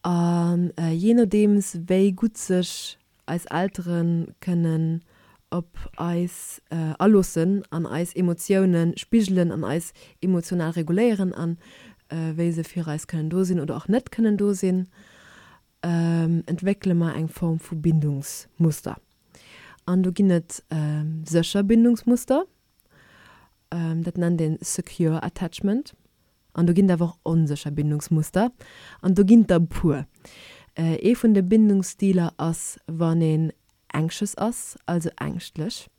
A jee nodeems, wéi gutt sech eis Eltere kënnen op eis aloossen an eis Emotioune spigelen an eis emotional reguléieren an wéi se fir eis kënnen do sinn oder och net kënnen do sinn, entwéckele mer eng Form vu Bindungsmuster. An do ginn et sécher Bindungsmuster, dat nennt een secure attachment. An do ginn et awer och onsécher Bindungsmuster, an do ginn et der e puer. Ee vun de Bindungsstiler ass, wann een anxious ass, also ängschtlech.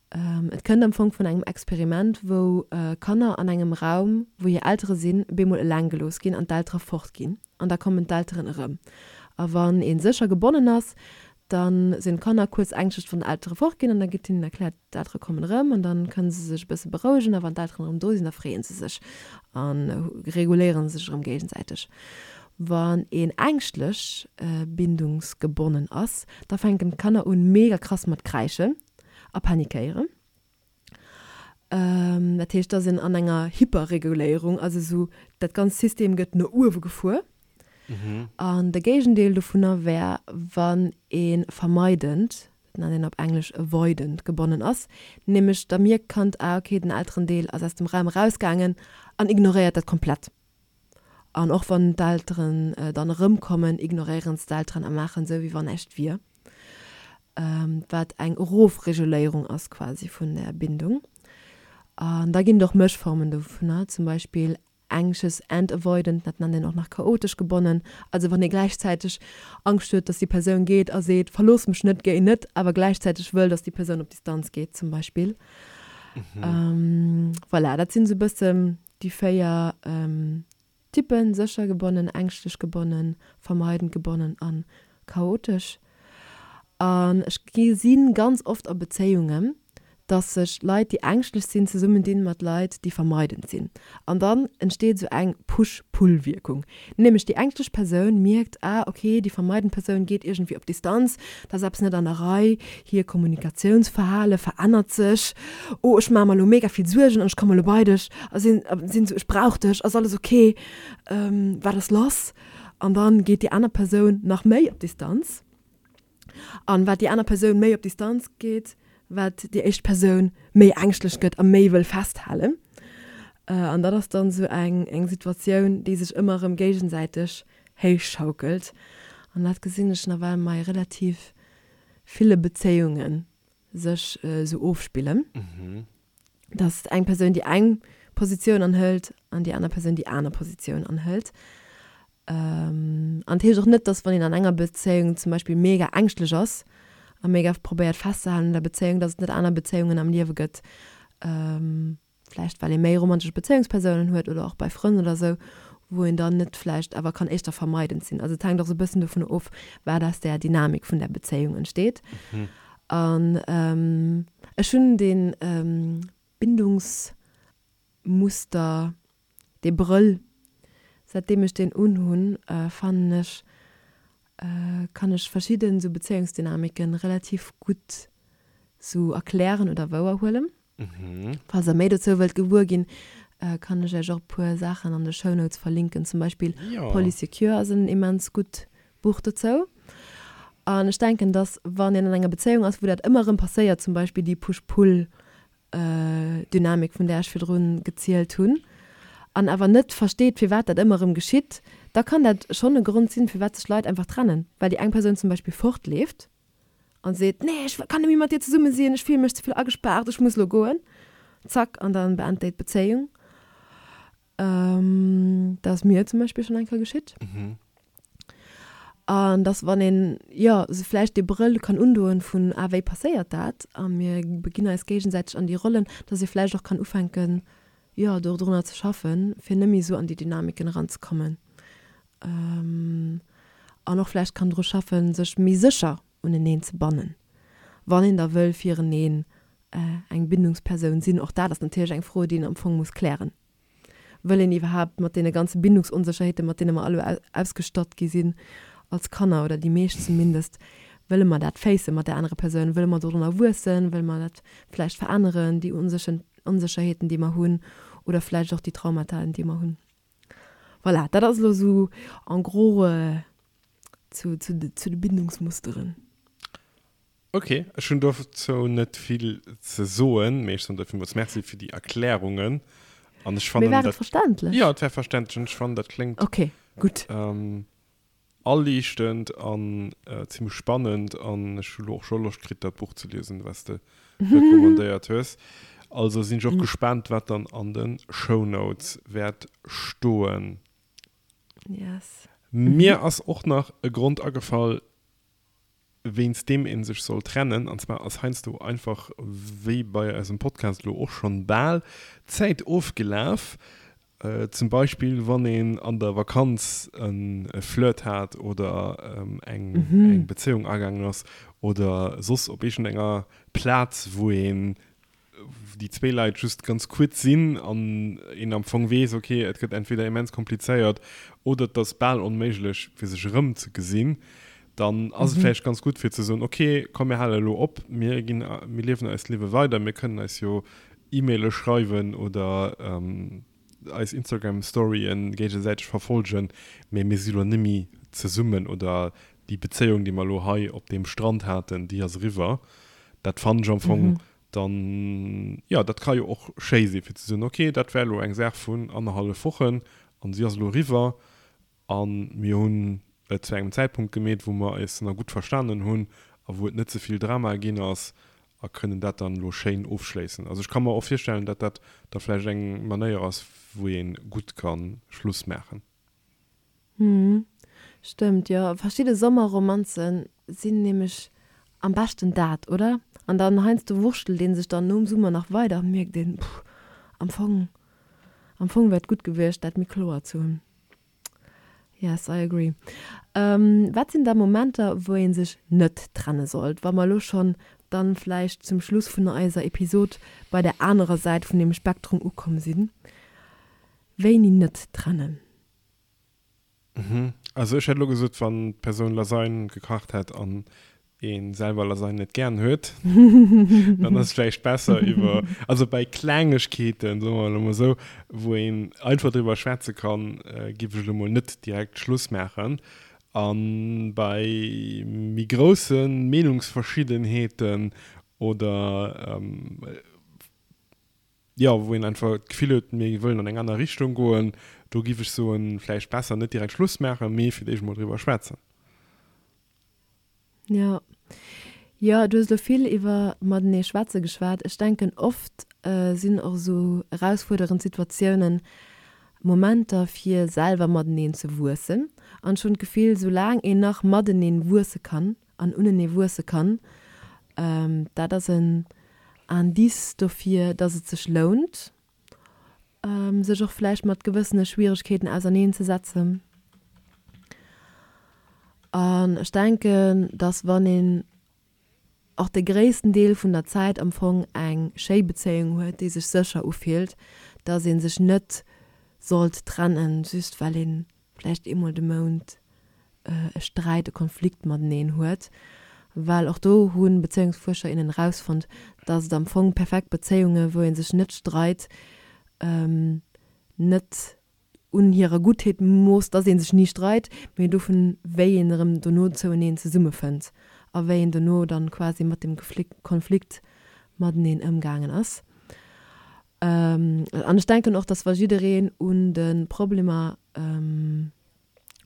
Et kënnt am Fong vun engem Experiment, wou Kanner an engem Raum, wou hir Eltere sinn, bemol eleng gelooss ginn an d'Eltere fort ginn. An da kommen d'Elteren erëm. A wann ee sécher gebonnen ass, da sinn d'Kanner kuerz ängschtlech, wann d'Eltere fort ginn. An da gëtt hinnen erkläert, d'Eltere kommen erëm. An da kënne se sech e bësse berouegen. A wann d'Elteren erëm do sinn, da freeë se sech a reguléiere sech erëm géigesäiteg. Wann een ängschtlech bindungsgebonnen ass, da fänken d'Kanner un mega krass mat kräischen a panikéieren. Dat heescht, da sinn an enger Hyperreguléierung, also esou dat ganzt System gëtt no uewe gefuer. An de Géigendeel dovunner wär, wann ee vermeidend, dat nennt een op Englesch avoidant, gebonnen ass, nämlech da mierkt d'Kand, ah okay, den Elterendeel ass aus dem Raum erausgaangen an ignoréiert dat komplett. An och wann d'Elteren dann erëmkommen, ignoréieren se d'Elteren a maachen esou, wéi wann näischt wier. Wat eng Erofreguléierung ass quasi vun der Bindung. An da ginn et och Mëschformen dovunner, zum Beispill anxious and avoidant, dat nennt een och nach chaotesch gebonnen. Also wann ee gläichzäiteg Angscht huet, dass déi Persoun geet a seet, verlooss mech net, géi net, awer gläichzäiteg wëll, dass déi Persoun op Distanz geet zum Beispill. Voilà, dat sinn esou e bëssen Déi 4 Typen, sécher gebonnen, ängschtlech gebonnen, vermeidend gebonnen a chaotesch. An ech gesi ganz oft a Bezéiungen, Dass sech Leit, déi ängschtlech sinn, zesummendinn mat Leit, déi vermeidend sinn. An dann entsteet esou eng Push-Pull-Wierkung. Nämlech déi ängschtlech Persoun mierkt, ah ok, déi vermeidend Persoun geet iergendwéi op Distanz, da ass eppes net an der Rei, hir Kommunikatiounsverhale verännert sech, oh ech maache mer elo mega vill Suergen an ech komme elo bei dech a sinn sinn esou, ech brauch dech, ass alles ok, wat ass lass? An dann geet déi aner Persoun nach méi op Distanz. An wat déi aner Persoun méi op Distanz geet, wat déi éischt Persoun méi ängschtlech gëtt a méi wëll festhalen. An dat ass dann esou eng eng Situatioun, déi sech ëmmer erëm géigesäiteg héichschaukelt. An dat gesinn ech nawell mei relativ ville Bezéiunge sech esou ofspillen, dass eng Persoun déi eng Positioun anhëlt an déi aner Persoun déi aner Positioun anhëlt. An et heescht och net, dass wann een an enger Bezéiung zum Beispill mega ängschtlech ass a mega probéiert festzehalen un der Bezéiung, dass et net aner Bezéiungen am Liewe gëtt, vläicht well ee méi romantesch Bezéiungspersounen huet oder och bei Frënn oder sou, wou een dann net vläicht awer kann éischter vermeidend sinn. Also et hänkt och sou e bëssen dovun of, wat aus där Dynamik vun där Bezéiung entsteet. An ech hunn dee Bindungsmuster, dee Brëll, säitdeem ech deen unhunn, fannen ech, kann ech verschidden sou Bezéiungsdynamiken relativ gutt sou erklären oder wouerhuelen. Falls der méi dozou wëllt gewuer ginn, kann ech iech och e puer Saachen an de Shownotes verlinken. Zum Beispill Polysecure ass en immens gutt Buch dozou. An ech denken, dass wann een an enger Bezéiung ass, wou dat ëmmer erëm passéiert, zum Beispill déi Push-Pull Dynamik, vun där ech virdrun gezielt hunn, an awer net versteet, firwat dat ëmmer erëm geschitt, da kann dat schonn e Grond sinn, firwat sech Leit einfach trennen, well déi eng Persoun zum Beispill fortleeft an seet, Nee, ech kann net méi mat dir zesumme sinn, ech fille mech ze vill agespaart, ech muss elo goen. Zack, an dann beent déi d'Bezéiung. Dat ass mir zum Beispill schonn eng Kéier geschitt. An dass wann een, jo, sou vläicht dee Brëll kann undoen vun, ah, wéi passéiert dat? A mir beginn eis géigesäiteg an déi Rollen, dass ee vläicht och kann ufänken, jo, dodrunner ze schaffen, fir net méi esou an déi Dynamiken eranzekommen. An och vläicht kann dru schaffen, sech méi sécher uneneen ze bannen, wann een da wëll fireneen eng Bindungspersoun sinn. Och dat ass natierlech eng Fro, déi een am Fong muss klären. Wëll een iwwerhaapt mat deene ganze Bindungsonsécherheeten, mat deene mer alle ausgestatt gi sinn als Kanner, oder déi meescht zumindest, wëlle mer dat facen mat där anerer Persoun? Wëlle mer dorunner wuessen? Wëlle mer dat vläicht veränneren, déi Onsécherheeten, déi mer hunn, oder vläicht och déi Traumataen, déi mer hunn? Voilà, dat ass elo esou en gros zu de Bindungsmusteren. Ok, ech hunn dozou net vill ze soen, mee ech soen der villmools Merci fir déi Erklärungen. An ech fannen dat. Mee war et verständlech? Jo, et war verständlech an ech fannen dat kléngt. Ok, gutt. Aliichtend an zimmlech spannend an ech hu lo och scho Loscht kritt dat Buch ze liesen, wat s de recommandéiert hues. Also sinn ech och gespaant, wat dann an de Shownotes wäert stoen. Yes. Mir ass och nach e Grond agefall, wéinst deem ee sech soll trennen, an zwar ass heiansdo einfach, wéi bei eisem Podcast elo och schonn bal, d'Zäit ofgelaf. Zum Beispill wann een an der Vakanz e Flirt hat oder eng Bezéiung agaangen ass oder soss op iergendenger Plaz, wou een déi zwéi Leit just ganz kuerz sinn an een am Fong weess, ok, et gëtt entweder immens komplizéiert oder et ass bal onméiglech, fir sech erëm ze gesinn, dann ass et vläicht ganz gutt fir ze soen, ok, komm mir hale elo op, mir ginn, mir liewen eist Liewe weider, mir kënnen eis jo E-Maile schreiwen oder eis Instagram Storyen géigesäiteg verfolgen, mee mir si lo nemmi zesummen oder déi Bezéiung déi mer lo hei op deem Strand haten, déi ass eriwwer. Dat fannen ech am Fong dann, jo dat ka jo och schéi si fir ze soen, ok dat war lo eng Saach vun annerhallef Wochen an si ass elo eriwwer A mir hunn et zu engem Zäitpunkt gemeet, wou mer eis nach gutt verstanen hunn a wou et net ze vill Drama ginn ass a kënnen dat dann elo schéin ofschléissen. Also ech ka mer och virstellen, datt dat da vläicht eng Manéier ass, wou ee gutt ka Schluss maachen. Hm, stëmmt, jo. Verschidde Sommerromanzen sinn nämlech am beschten dat, oder? An dann heiansdo wurschtelt ee sech dann nom Summer nach weider an mierkt een, Puh, am Fong, am Fong wär et gutt gewiescht, dat méi kloer ze hunn. Yes, I agree. Wat sinn da Momenter, wou ee sech net trenne sollt? Wa mer elo schonn. dann vläicht zum Schluss vun eiser Episod bei der anerer Säit vun dem Spektrum ukomm sinn. Wéini net trennen? Also ech hätt elo gesot, wann d'Persoun Lasagne gekacht hätt an ee selwer Lasagne net gären huet, dann ass et vläicht besser iwwer, also bei Klengegkeeten, soe mer elo mol esou, wou een einfach driwwer schwätze kann, géif ech elo mol net direkt Schluss maachen. A bei méi grousse Meenungsverschiddenheeten oder, jo, wou een einfach d'Gefill huet, mir wëllen an eng aner Richtung goen, do giff ech soen, vläicht besser net direkt Schluss maachen, mee fir d'éischt emol driwwer schwätzen. Jo. Jo, du hues elo vill iwwer matenee schwätze geschwat. Ech denken, oft sinn och esou erausfuerderend Situatiounen Momenter, fir selwer mateneen ze wuessen. An ech hunn d'Gefill, soulaang een nach mateneen wuesse kann, an unenee wuesse kann, dat ass en Indice dofir, dass et sech lount, sech och vläicht mat gewëssene Schwieregkeeten auserneen ze setzen. An ech denken, dass wann een och de gréissten Deel vun der Zäit am Fong eng schéi Bezéiung huet, déi sech sécher ufillt, dass ee sech net sollt trennen, just well ee vläicht eemol de Mount e Sträit, e Konflikt mateneen huet, well och do hu Bezéiungsfuerscher, innen erausfonnt, dass et am Fong perfekt Bezéiunge wou ee sech net streit, net un hirer Guttheet moosst, dass ee sech ni streit, mee dovun wéi een erëm dono zoueneen zesummefënnt a wéi een dono dann quasi mat dem Konflikt mateneen ëmgaangen ass. An ech denken och, dass wa jiddereen un de Problemer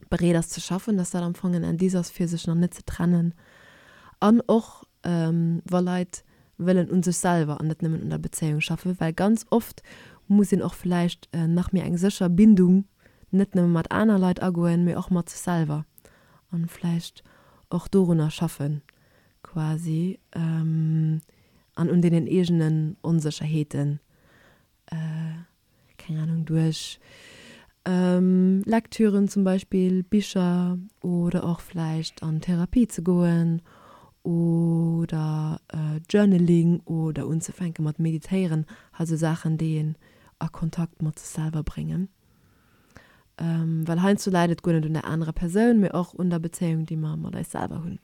bereet ass ze schaffen, dass dat am Fong en Indice ass fir sech nach net ze trennen an och wa Leit wëllen un sech selwer an net nëmmen un der Bezéiung schaffen, well ganz oft muss een och vläicht nach méi eng sécher Bindung net nëmme mat aner Leit agoen, mee och mat sech selwer an vläicht och dorunner schaffen quasi an un deenen eegenen Onsécherheeten keng Ahnung, duerch Lektüren zum Beispill, Bicher oder och vläicht an Therapie ze goen oder Journaling oder unzefänke mat meditéieren, also Saachen déi een a Kontakt mat sech selwer bréngen. Well heiansdo läit et guer net un der anerer Persoun, mee och un der Bezéiung déi mer mat eis selwer hunn.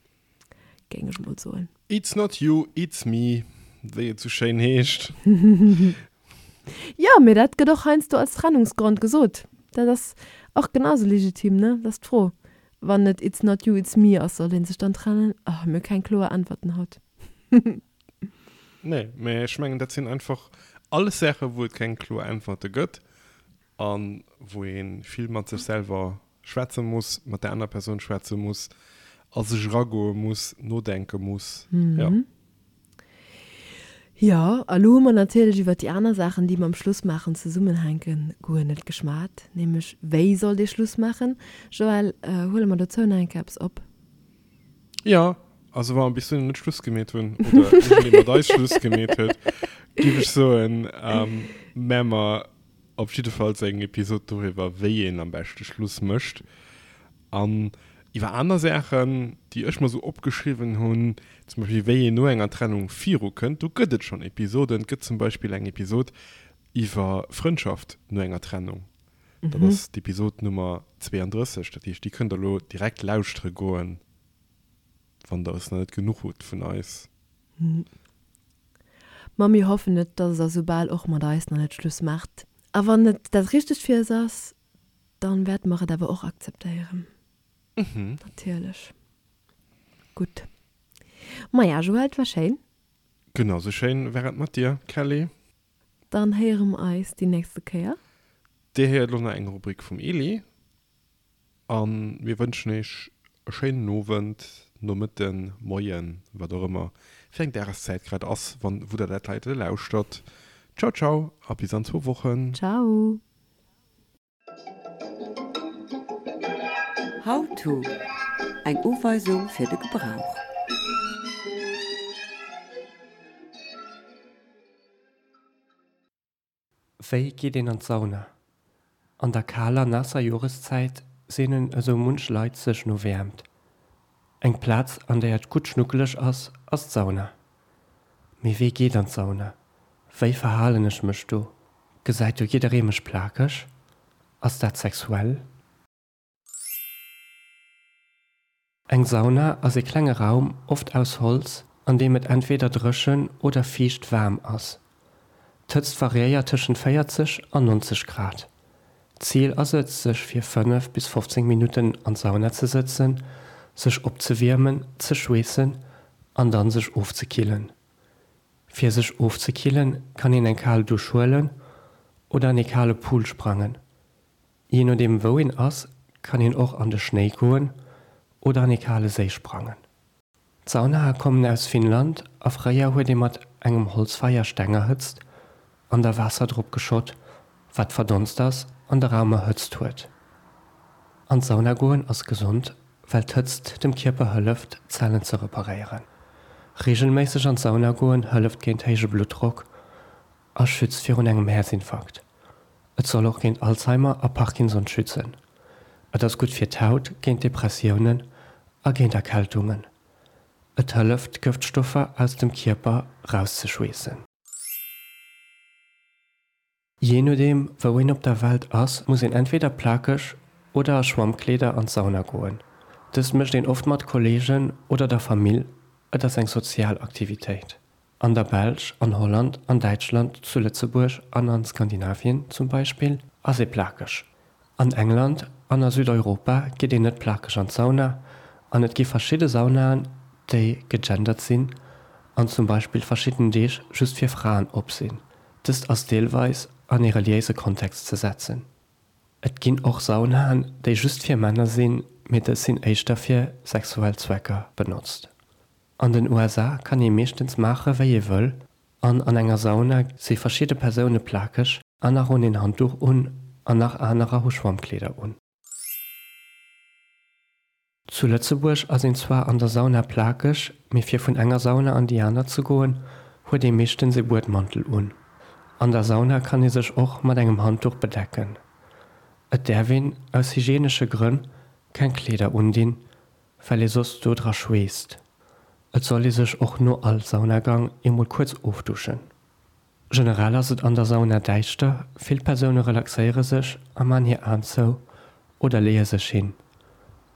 Géing ech mol soen. It's not you, it's me, wéi et sou schéin heescht. Jo, mee dat gëtt och heiansdo als Trennungsgrond gesot. Dat ass och genau sou legitim, ne? Dat ass d'Fro. Wann et it's not you, it's me ass, soll ee sech dann trennen? Oh, mir hu keng kloer Äntwerten haut. Nee, mee ech mengen, dat sinn einfach alles Saachen, wou et keng kloer Äntwerte gëtt a wou ee vill mat sech selwer schwätze muss, mat der aner Persoun schwätze muss, a sech eragoe muss, nodenke muss. Jo. Jo, a lo hu mer natierlech iwwert déi aner Saachen, déi mam Schlussmaachen zesummenhänken, guer net geschwat, nämlech wéi sollt ee Schluss maachen. Joël, huele mer dozou nach eng Kéier eppes op? Jo, also wa mer bis dohinner net Schluss gemeet hunn oder iergendee mat eis Schluss gemeet huet, géif ech soen, mä mer Op jiddefalls eng Episod doriwwer, wéi een am beschte Schluss mécht. An iwwer aner Saachen, déi ech mer sou opgeschriwwen hunn, zum Beispill wéi een no enger Trennung virukënnt, do gëtt et schonn Episoden. Et gëtt zum Beispill eng Episod iwwer Frëndschaft no enger Trennung. Dat ass d'Episod Nummer 32. Dat heescht, déi kënnt der elo direkt lauschtere goen, wann der es nach net genuch hutt vun eis. Ma mir hoffen et, dass der soubal och mat eis nach net Schluss maacht. A wann et dat Richtegt fir eis ass, dann wäerte mer et awer och akzeptéieren. Natierlech. Gutt. Maja, Joël, et war schéin. Genau sou schéin war et mat dir, Kelly. Dann héiere mer eis déi nächste Kéier. Dir héiert elo nach eng Rubrik vum Eli. A mir wënschen iech e schéinen Owend, Nomëtten, Moien, wat och ëmmer fir eng Dageszäit grad ass, wann, wou der dat heite lauschtert. Ciao, ciao a bis an zwou Wochen. Ciao. How to, Eng Uweisung fir de Gebrauch. Wéi geet een an d'Sauna? An der kaler, naasser Joreszäit seenen esou munch Leit sech no Wäermt. Eng Plaz, an där et gutt schnuckeleg ass, ass d'Sauna. Mee wee geet an d'Sauna? Wéi verhalen ech mech do? Gesäit do jidderee mech plakeg? Ass dat sexuell? Eng Sauna ass ee klenge Raum, oft aus Holz, an deem et entweder dréchen oder fiicht waarm ass. D'Hëtzt variéiert tëschent 40 an 90 Grad. D'Zil ass et, sech fir 5 bis 15 Minutten an d'Sauna ze sëtzen, sech opzewiermen, ze schweessen an dann sech ofzekillen. Fir sech ofzekillen, kann een eng kal Dusch huelen oder an ee kale Pool sprangen. Jee nodeem wou een ass, kann een och an de Schnéi goen oder an ee kale Séi sprangen. D'Saunae kommen aus Finnland a fréier huet ee mat engem Holzfeier Steng erhëtzt an da Waasser drop geschott, wat verdonst ass an de Raum erhëtzt huet. An d'Sauna goen ass gesond, well d'Hëtzt dem Kierper hëlleft, d'Zellen ze reparéieren. Reegelméisseg an d'Sauna goen hëlleft géint héije Bluttdrock a schützt virun engem Häerzinfarkt. Et soll och géint Alzheimer a Parkinson schützen. Et ass gutt fir d'Haut, géint Depressiounen a géint Erkältungen. Et hëlleft, Gëftstoffer aus dem Kierper rauszeschweessen. Jee nodeem wou een op der Welt ass, muss een entweder plakeg oder a Schwammkleeder an d'Sauna goen. Dëst mécht een oft mat Kolleegen oder der Famill, et ass eng sozial Aktivitéit. An der Belsch, an Holland, an Däitschland, zu Lëtzebuerg an an Skandinavien zum Beispill ass ee plakeg. An England an a Südeuropa geet een net plakeg an d'Sauna an et gi verschidde Saunaen, déi gegendert sinn an zum Beispill verschidden Deeg just fir Fraen op sinn. Dëst ass deelweis an ee reliéise Kontext ze setzen. Et ginn och Saunaen, déi just fir Männer sinn, mee dës sinn éischter fir sexuell Zwecker benotzt. An den USA kann ee meeschtens maache wéi ee wëll an an enger Sauna si verschidde Persoune plakeg, aner hunn een Handduch un an nach anerer hu Schwammkleeder un. Zu Lëtzebuerg ass een zwar an der Sauna plakeg, mee fir vun enger Sauna an déi aner ze goen, huet ee meeschtens ee Buedmantel un. An der Sauna kann ee sech och mat engem Handduch bedecken. Et däerf een, aus hygienesche Grënn, keng Kleeder undinn, well ee soss do dra schweesst. Et soll ee sech och no all Saunagang eemol kuerz ofduschen. Generell ass et an der Sauna däischter, vill Persoune relaxéiere sech a man hir Aen zou oder leeë sech hin.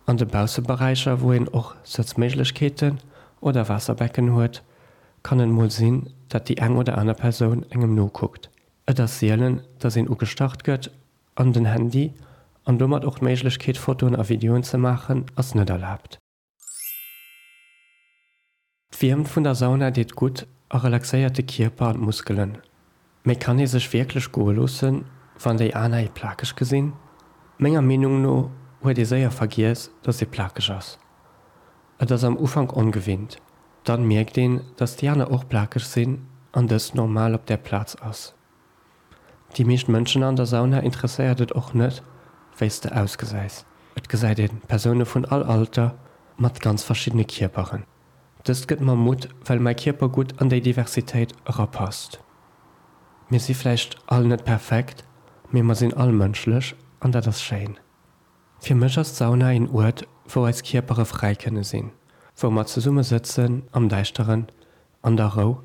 An de Bausseberäicher, wou een och Sëtzméiglechkeeten oder Waasserbecken huet, kann et mol sinn, dat déi eng oder aner Persoun engem nokuckt. Et ass sielen, dass een ugestach gëtt An den Handy, an domat och d'Méiglechkeet Fotoen a Videoen ze maachen, ass net erlaabt. D'Wiermt vun der Sauna deet gutt a relaxéiert de Kierper an d'Muskelen. Mee kann ee sech wierklech goe loossen, wann déi aner ee plakeg gesinn? Menger Meenung no huet ee séier vergiess, dass ee plakeg ass. Et ass am Ufank ongewinnt, dann mierkt een, dass déi aner och plakeg sinn an dëst normal op där Plaz ass. Déi meescht Mënschen an der Sauna interesséiert et och net, wéi s de ausgesäis. Et gesäit ee Persoune vun all Alter mat ganz verschiddene Kierperen. Dëst gëtt mer Mutt, well mäi Kierper gutt an déi Diversitéit erapasst. Mir si vläicht all net perfekt, mee mer sinn all mënschlech an dat ass schéin. Fir mech ass d'Sauna een Uert, wou eis Kierpere fräi kënne sinn, wou mer zesumme sëtzen am Däischteren, an der Rou,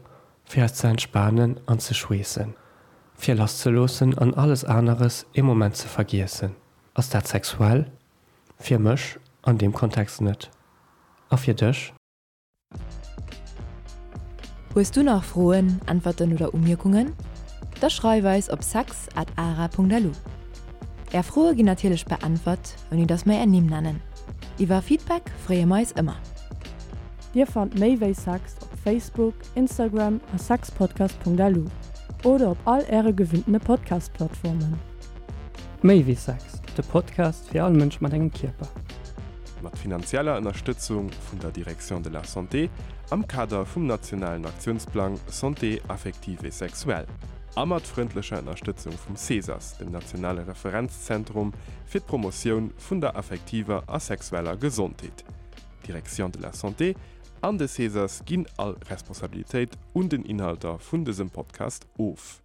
fir eis ze entspanen an ze schweessen, fir lasszeloossen an alles aneres ee Moment ze vergiessen. Ass dat sexuell? Fir mech an deem Kontext net. A fir dech? Hues du nach Froen, Äntwerten oder Umierkungen? Da schreif eis op sex at ara.lu. Är Froe ginn natierlech beäntwert, ouni dass mer är Nimm nennen. Iwwer Feedback freeë mer eis ëmmer. Dir fannt méi wéi Sex op Facebook, Instagram a sexpodcast.lu oder op all äre gewinntene Podcast-Plattformen. Méi wéi Sex, de Podcast fir all Mënsch mat engem Kierper. Mat finanzieller Ënnerstëtzung vun der Direction de la Santé am Kader vum nationalen Aktiounsplang Santé affective et sexuelle a mat frëndlecher Ënnerstëtzung vum CESAS, dem nationale Referenzzentrum fir d'Promotioun vun der affektiver a sexueller Gesondheet. D'Direction de la Santé an de CESAS ginn all Responsabilitéit un den Inhalter vun dësem Podcast of.